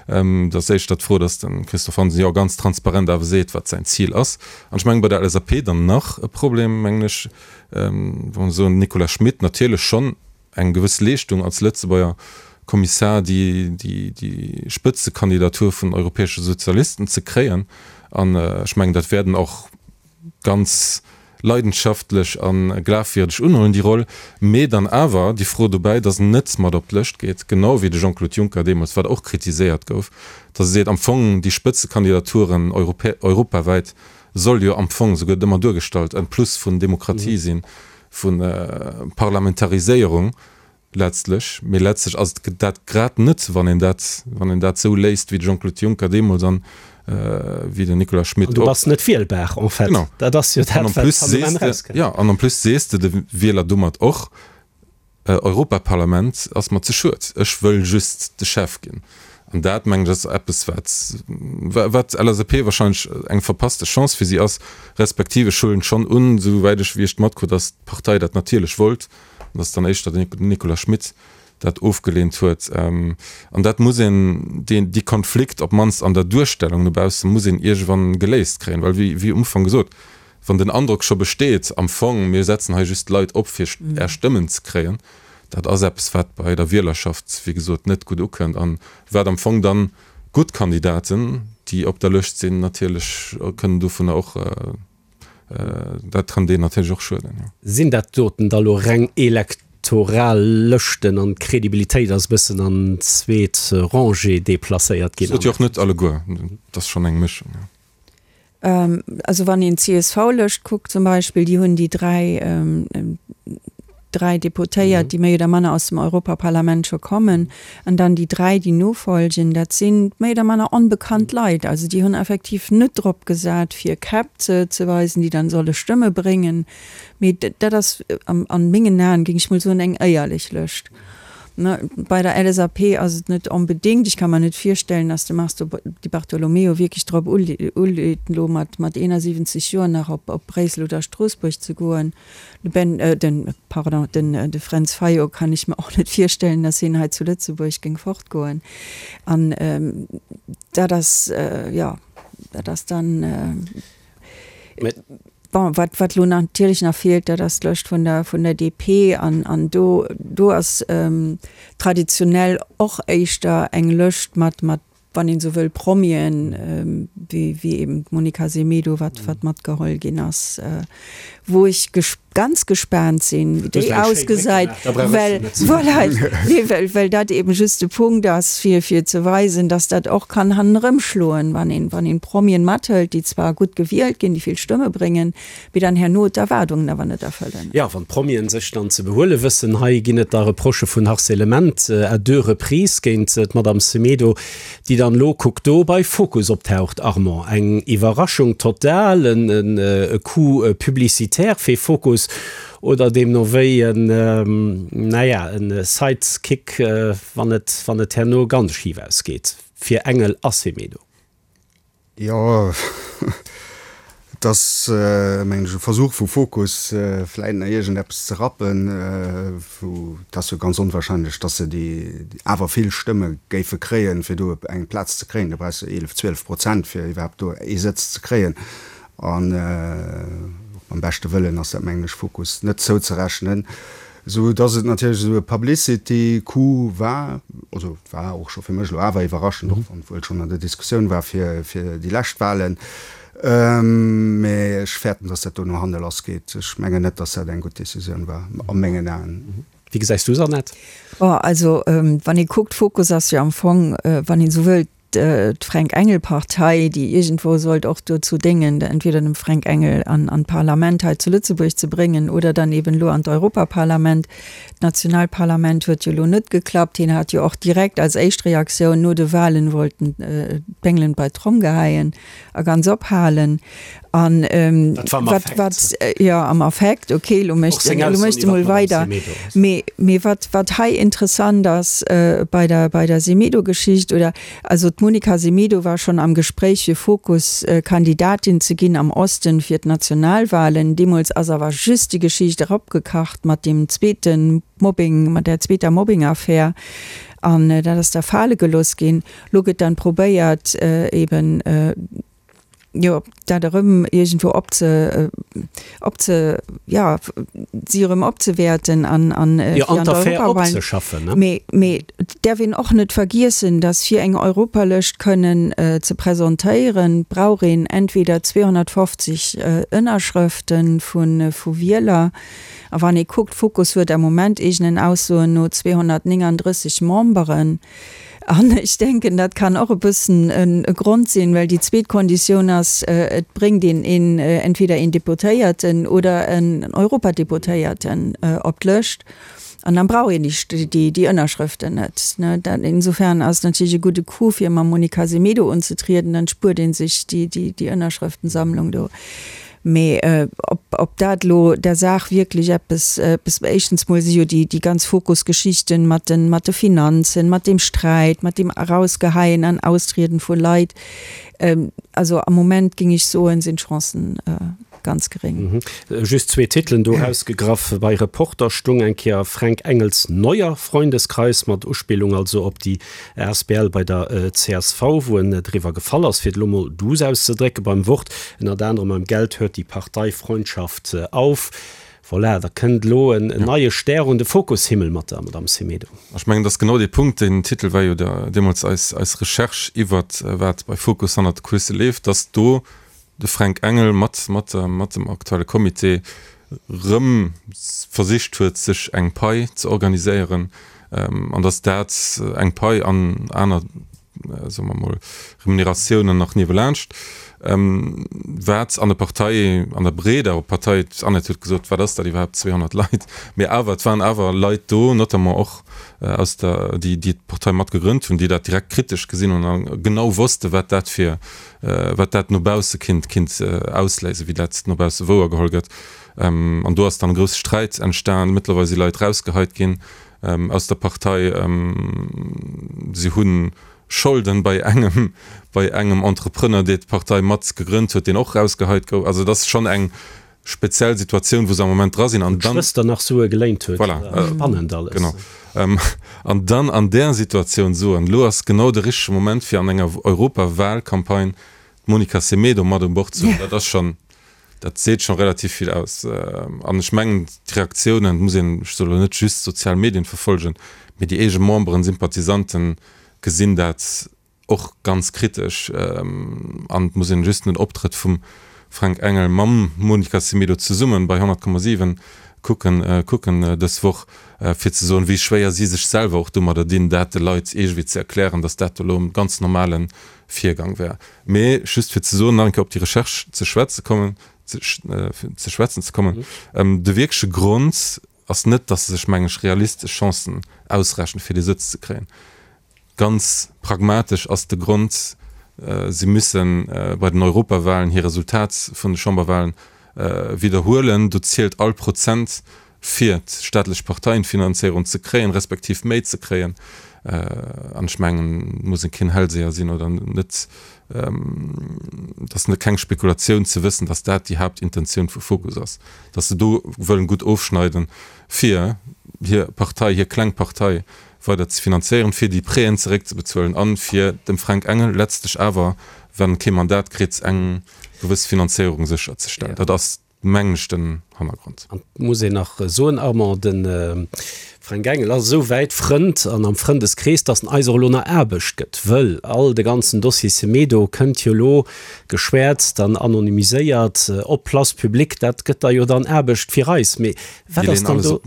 Et ass éischter d'Fro, datt de Christophe Hansen jo ganz transparent awer seet, wat säin Zil ass. An ech mengen, bei der LSAP dann nach e Problem, mengen ech, wa mer soen, Nicolas Schmit natierlech schonn eng gewëss Leeschtung als Lëtzebuerger Kommissar, déi déi Spëtzekandidatur vun den europäesche Sozialisten ze kréien. An ech mengen, dat wäerten och ganz. leidenschaftlech a glafwierdeg unhuelen, déi Roll, mee dann awer déi Fro dobäi, datt en net mat op d'Lëscht geet, genau wéi de Jean-Claude Juncker deemools, wat och kritiséiert gouf, datt e seet, am Fong déi Spëtzekandidaturen europawäit soll jo am Fong, esou gëtt et ëmmer duergestallt, en Plus vun Demokratie sinn, vu Parlamentariséierung. Letztlech, mee letztlech ass et dat grad net, wann een dat, wann een dat esou léist wéi de Jean-Claude Juncker deemools an wéi den Nicolas Schmit och. An du bass net wielbar en fait. Genau. Dat ass jo dat, wat am Enn erauskënnt. Jo, an en plus sees de de Wieler domat och, Europaparlament ass mer ze schued, ech wëll just de Chef ginn. An dat, mengen ech, ass eppes, wat, wat LSAP wahrscheinlech eng verpasste Chance fir si ass, respektiv ech huelen schonn un, esouwäit ech, wéi ech et matkrut, datt d'Partei dat natierlech wollt, an dass dann éischter den Nicolas Schmit dat ofgeleent huet. An dat muss een, deen, déi Konflikt, op d'mannst an der Duerstellung no bausse muss een iergendwann geléist kréien, well wéi, wéi um Ufank gesot, wann den Androck scho besteet, am Fong, mir setzen hei just Leit op fir Är Stëmmen ze kréien, dat ass eppes wat bei der Wielerschaft, wéi gesot, net gutt ukënnt an wat am Fong dann gutt Kandidaten, déi op der Lëscht sinn, natierlech kënnen dovunner och, Dat kann deen natierlech och schueden, jo. Sinn dat doten da lo reng elektoral Lëschten an d'Credibilitéit ass e bëssen an d'zweet Rangée deplacéiert ginn? Sot jo och net alleguer, et ass schonn eng Mëschung, jo. Also wann een d'CSV-Lëscht kuckt zum Beispill, déi hunn déi 3, 3 Deputéiert, déi méi oder manner aus dem Europaparlament scho kommen, an dann déi 3, déi nofolgen, dat si méi oder manner onbekannt Leit. Also déi hunn effektiv net drop gesat, fir Käpp ze ze weisen, déi dann solle Stëmme bréngen, mee dat ass an mengen Aen, géing ech mol soen, eng éierlech Lëscht. Bei der LSAP ass et net onbedéngt, ech ka mer net virstellen, datt de Mars Di Bartolomeo wierklech drop uleet, elo mat 71 Joer nach op Bréissel oder Stroossbuerg ze goen. De Ben, den, pardon, den, de Fränz Fayot kann ech mer och net virstellen, datt hien hei zu Lëtzebuerg géing fortgoen. An dat ass, jo, dat ass dann, bon, wat, wat elo natierlech nach feelt, dat ass d'Lëscht vun der, vun der DP. An, an do, do ass traditionell och éischter eng Lëscht mat, mat wann een esou wëll, Promien, wéi eben d'Monica Semedo, wat wat matgeholl ginn ass, wou ech ganz gespaant sinn, wéi déi ausgesäit, well, voilà, nee, well, well dat eben just de Punkt ass, fir, fir ze weisen, dass dat och kann hannerëm schloen, wann een, wann een Promien mathëlt, déi zwar gutt gewielt ginn, déi vill Stëmme bréngen, mee dann herno d'Erwaardungen awer net erfëllen. Jo, wann d'Promien sech dann ze behuele wëssen. Hei ginn et da Reprochë vun Harcèlement à deux reprises géint d'Madame Semedo, déi dann elo, kuck do, bei Focus optaucht. Armand, eng Iwwerraschung total, e Coup publicitaire fir Focus oder deemno wéi en, naja, e Sidekick, wann et, wann et herno ganz schif ausgeet fir Engel a Semedo? Jo, et ass, mengen ech, e Versuch vu Fokus, vläit nach iergendeppes ze rappen. Vu et ass jo ganz onwahrscheinlech, datt se déi awer vill Stëmme géife kréien, fir do eng Plaz ze kréien. Do brauchs de 11, 12 Prozent, fir iwwerhaapt do ee Sëtz ze kréien. An och mam beschte Wëllen ass dat, mengen ech, Fokus net zouzerechnen. Sou dass et natierlech esou e Publicity-Coup war, also et war och scho fir mech elo awer iwwerraschend, och wann et wuel schonn an der Diskussioun war fir déi lescht Wahlen, mä ech fäerten, dass dat do no hanne lassgeet. Ech mengen net, dass dat eng gutt Decisioun war, a mengen Aen. Wéi gesäis du s'Annette? Bon, also wann ee kuckt, Fokus ass jo am Fong, wann een esou wëllt, d'Fränk Engel Partei, déi iergendwou sollt och dozou déngen, entweder dem Fränk Engel an an d'Parlament hei zu Lëtzebuerg ze bréngen oder dann eben elo an d'Europaparlament. D'Nationalparlament huet jo elo net geklappt. Hien hat jo och direkt als éischt Reaktioun no de Wahlen wollt en d'Bengelen bei d'Tromm geheien a ganz ophalen. An Dat war am wat, Affekt. wat, jo, am Affekt, okay, elo Och mécht seng elo Aussoen mécht e iwwer mol d'Madame weider. Semedo ass. Mee, mee wat, wat hei interessant ass bei der, bei der Semedo-Geschicht, oder, also d'Monica Semedo war schonn am Gespréich fir Fokus Kandidatin ze ginn am Osten fir d'Nationalwahlen. Deemools ass awer just déi Geschicht eropgekacht mat deem zweete Mobbing, mat där zweeter Mobbing-Affär, an dat ass da fale gelooss ginn. Lo gëtt dann probéiert eben. Jo, dat erëm iergendwou opze, opze, jo, si erëm opzewäerten an, an Jo, an d'Affär opzeschaffen, ne? Mee, mee et däerf een och net vergiessen, dass fir eng Europalëscht kënnen ze presentéieren, brauch een entweder 250 Ënnerschrëfte vu, vu Wieler. A wann ee kuckt, Fokus huet am Moment eegenen Aussoen no 239 Memberen. An ech denken, dat kann och e bëssen e Grond sinn, well déi zweet Konditioun ass, et bréngt een een, entweder een Deputéierten oder en Europadeputéierten op d'Lëscht. An dann brauch een déi, déi Ënnerschrëften net. Dat, insofern ass et natierlech e gudde Coup, fir mam Monica Semedo unzetrieden, dann spuert ee sech déi, déi Ënnerschrëftensammlung do. Mee ob, ob dat elo der Saach wierklech eppes, eppes, éischtens mol si jo déi, déi ganz Fokusgeschichten mat den, mat de Finanzen, mat deem Sträit, mat deem Erausgeheien an Austrieden vu Leit, also am Moment géing ech soen, sinn d'Chancen ganz geréng. Just zwee Titelen do erausgegraff, Bei Reporter stung eng Kéier Fränk Engels neuer Freundeskreis, mat Uspillung also op déi Asbl bei der csv, wou en driwwer gefall ass, fir et elo mol duuss auszedrécken, beim Wort, ënnert anerem Beim Geld hört die Parteifreundschaft auf. Voilà, da kënnt elo en neie Stär un de Fokushimmel mat der Madame Semedo. Ech mengen, dat ass genau dee Punkt. Deen Titel war jo deemools eis Recherche iwwert wat bei Fokus hannert de Kulisse leeft, dass do de Fränk Engel mat mat mat dem aktuelle Comité rëm versicht huet, sech eng Pai ze organiséieren, an datt dat eng Pai an aner, soe mer emol, Remuneratiounen nach niewelaanscht, wat an der Partei, an der breeder Partei, d'Annette huet gesot, wat ass dat iwwerhaapt, 200 Leit, mee awer, et waren awer Leit do, notamment och aus der, déi déi d'Partei mat gegrënnt hunn, déi dat direkt kritesch gesinn hunn a genau wosste wat dat fir wat dat no bausse kinnt kinnt ausléisen, wéi dat no bausse wouergeholl gëtt. An do ass dann e grousse Sträit entstan. Mëttlerweil si Leit rausgeheit ginn aus der Partei. Si hu Scholden bei engem bei engem Entrepreneur, dee d'Partei mat gegrënnt huet, deen och rausgeheit gouf. Also et ass schonn eng speziell Situatioun, wou se am Moment dra sinn. An dann. D'Schwëster nach Sue geléint huet. Voilà. Spannend alles. Genau. An dann an där Situatioun soen, elo ass genau de richtege Moment, fir an enger Europawahlcampagne d'Monica Semedo mat un Bord ze hunn, dat ass schonn, dat seet scho relativ vill aus. An ech mengen, d'Reaktiounen, et muss een, ech soe lo net just d'sozial Medien verfolgen, mee déi eege Memberen, Sympathisanten gesinn dat och ganz kritesch an et muss een just den Optrëtt vum Fränk Engel mam Monica Semedo zesummen bei 100,7 kucken kucken dës Woch fir ze soen wéi schwéier si sech selwer och domadder dinn dat de Leit iergendwéi ze erklären, datt dat do elo e ganz normale Virgang wär. Mee just fir ze soen, nach eng Kéier op déi Recherche ze schwätze kommen ze schwätzen ze kommen, de wierkleche Grond ass net, datt se sech meng ech realistesch Chancen ausrechnen fir dee Sëtz ze kréien. Ganz pragmatesch ass de Grond, Si müsse bei den Europawahlen hir Resultat vun de Chamberwahlen widderhuelen. Do zielt all Prozent, fir d'staatlech Parteienfinanzéierung ze kréien, respektiv méi ze kréien. An ech mengen, et muss ee keen Hellseher sinn oder net, et ass keng Spekulatioun ze wëssen, datt dat déi Haaptintentioun vu Fokus ass, datt se do wëllen gutt ofschneiden, fir hir Partei, hir kleng Partei weider ze finanzéieren, fir déi Prêten zeréckzebezuelen an fir dem Fränk Engel letztlech awer, wann e kee Mandat kritt, eng gewëss Finanzéierung sécherzestellen. Dat ass, mengen ech, den Hannergrond. An et muss een nach soen, Armand, de Fränk Engel ass esou wäit Frënd an am Frëndeskrees, datt en eis och elo nach Aarbecht gëtt, wëll all de ganzen Dossier Semedo kënnt jo elo geschwäerzt an anonymiséiert op d'Place publique. Dat gëtt da jo dann Aarbecht fir eis. Mee wat ass dann do?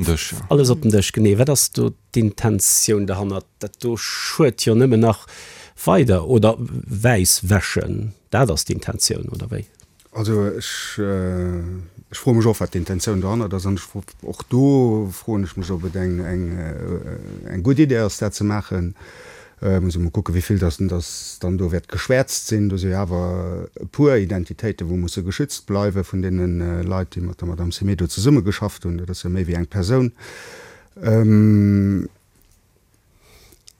Alles op den Dësch, genee. Wat ass do d'Intentioun derhannert? Dat do schued jo nëmmen nach weider, oder wäiss wäschen, dat ass d'Intentioun, oder wéi? Also ech, ech froe mech och, wat d'Intentioun dohannert ass. An ech, och do froen ech mech, ob et eng, eng, eng gutt Idee ass, dat ze maachen. Muss ee mol kucken, wéi vill dass, dass dann do wäert geschwäerzt sinn. Do si jo awer e puer Identitéiten, wou musse geschützt bleiwe vun deene Leit, déi mat der Madame Semedo zesummegeschafft hunn. Dat ass jo méi wéi eng Persoun.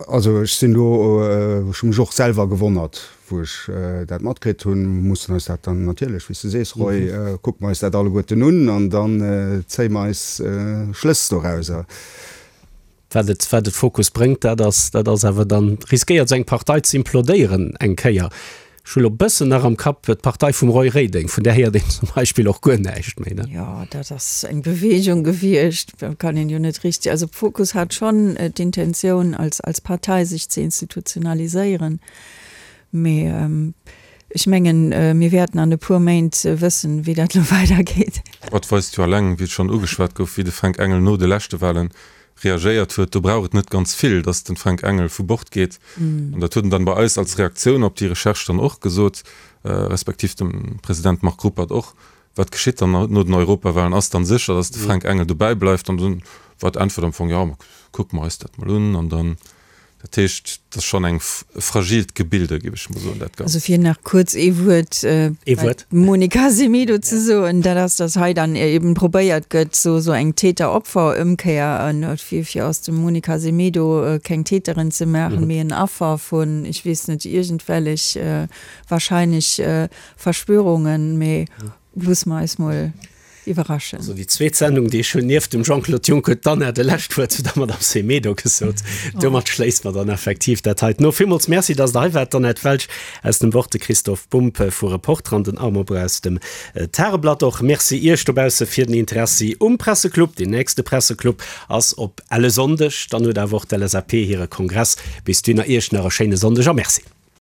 Also ech sinn do, ech hu mech och selwer gewonnert, wou ech dat matkritt hunn. Mir mussen eis dat dann natierlech, wéi s de sees, Roy, kucke mer eis dat alleguerten un an dann zéie mer eis Schlëss dorauser. Wat et, wat et Fokus bréngt, dat ass, dat ass awer dann, riskéiert esou eng Partei ze implodéieren eng Kéier. Ech hu lo bëssen nach am Kapp d'Partei vum Roy Reding, vun där héiert een zum Beispill och guer näischt méi, ne? Jo, dat ass eng Bewegung gewiescht, dat kann een jo net richteg, also Fokus hat schonn d'Intentioun als als Partei sech ze institutionaliséieren, mee ech mengen, mir wäerten an e puer Méint wëssen, wéi dat lo weidergeet. Et weist jo alleng, wéi et schonn ugeschwat gouf, wéi de Fränk Engel no de leschte Wahlen reagéiert huet, do brauch et net ganz vill, dass den Fränk Engel vu Bord geet. An dat huet en dann bei eis als Reaktioun op déi Recherche dann och gesot, respektiv dem President Marc Ruppert och, Wat geschitt dann no den Europawahlen? Ass dann sécher, dass de Fränk Engel dobäi bleift? An dunn war d'Äntwert am Fong, Jo, kucke mer eis dat mol un. An dann Dat heescht, et ass schonn eng e fragilt Gebilde, géif ech mol soen, dat Ganzt. Also fir nach kuerz ee Wuert Ee Wuert. Monica Semedo ze soen, dat ass, datt hei dann eben probéiert gëtt, sou sou eng Täter-Opfer-Ëmkéier, fir fir aus dem Monica Semedo keng Täterin ze maachen, mee en Affer vun, ech weess net, iergendwellech wahrscheinlech Verschwörungen. Mee loosse mer eis mol iwwerraschen. Also déi zweet Sendung, déi ech hunn nieft dem Jean-Claude Juncker, huet d'Anna de lescht Wuert zu der Madame Semedo gesot. Domat schléisse mer dann effektiv dat heiten of. Villmools Merci, dass Der hei waart, d'Annette Welsch aus dem Wort, de Christophe Bumb vu Reporter an den Armand Breu aus dem Tageblatt. Och Merci Iech dobausse fir den Interessi um Presseclub. Deen nächste Presseclub ass op elle Sonndeg. Dann huet awer och d'LSAP hire Kongress. Bis dunner Iech nach e schéine Sonndeg a Merci.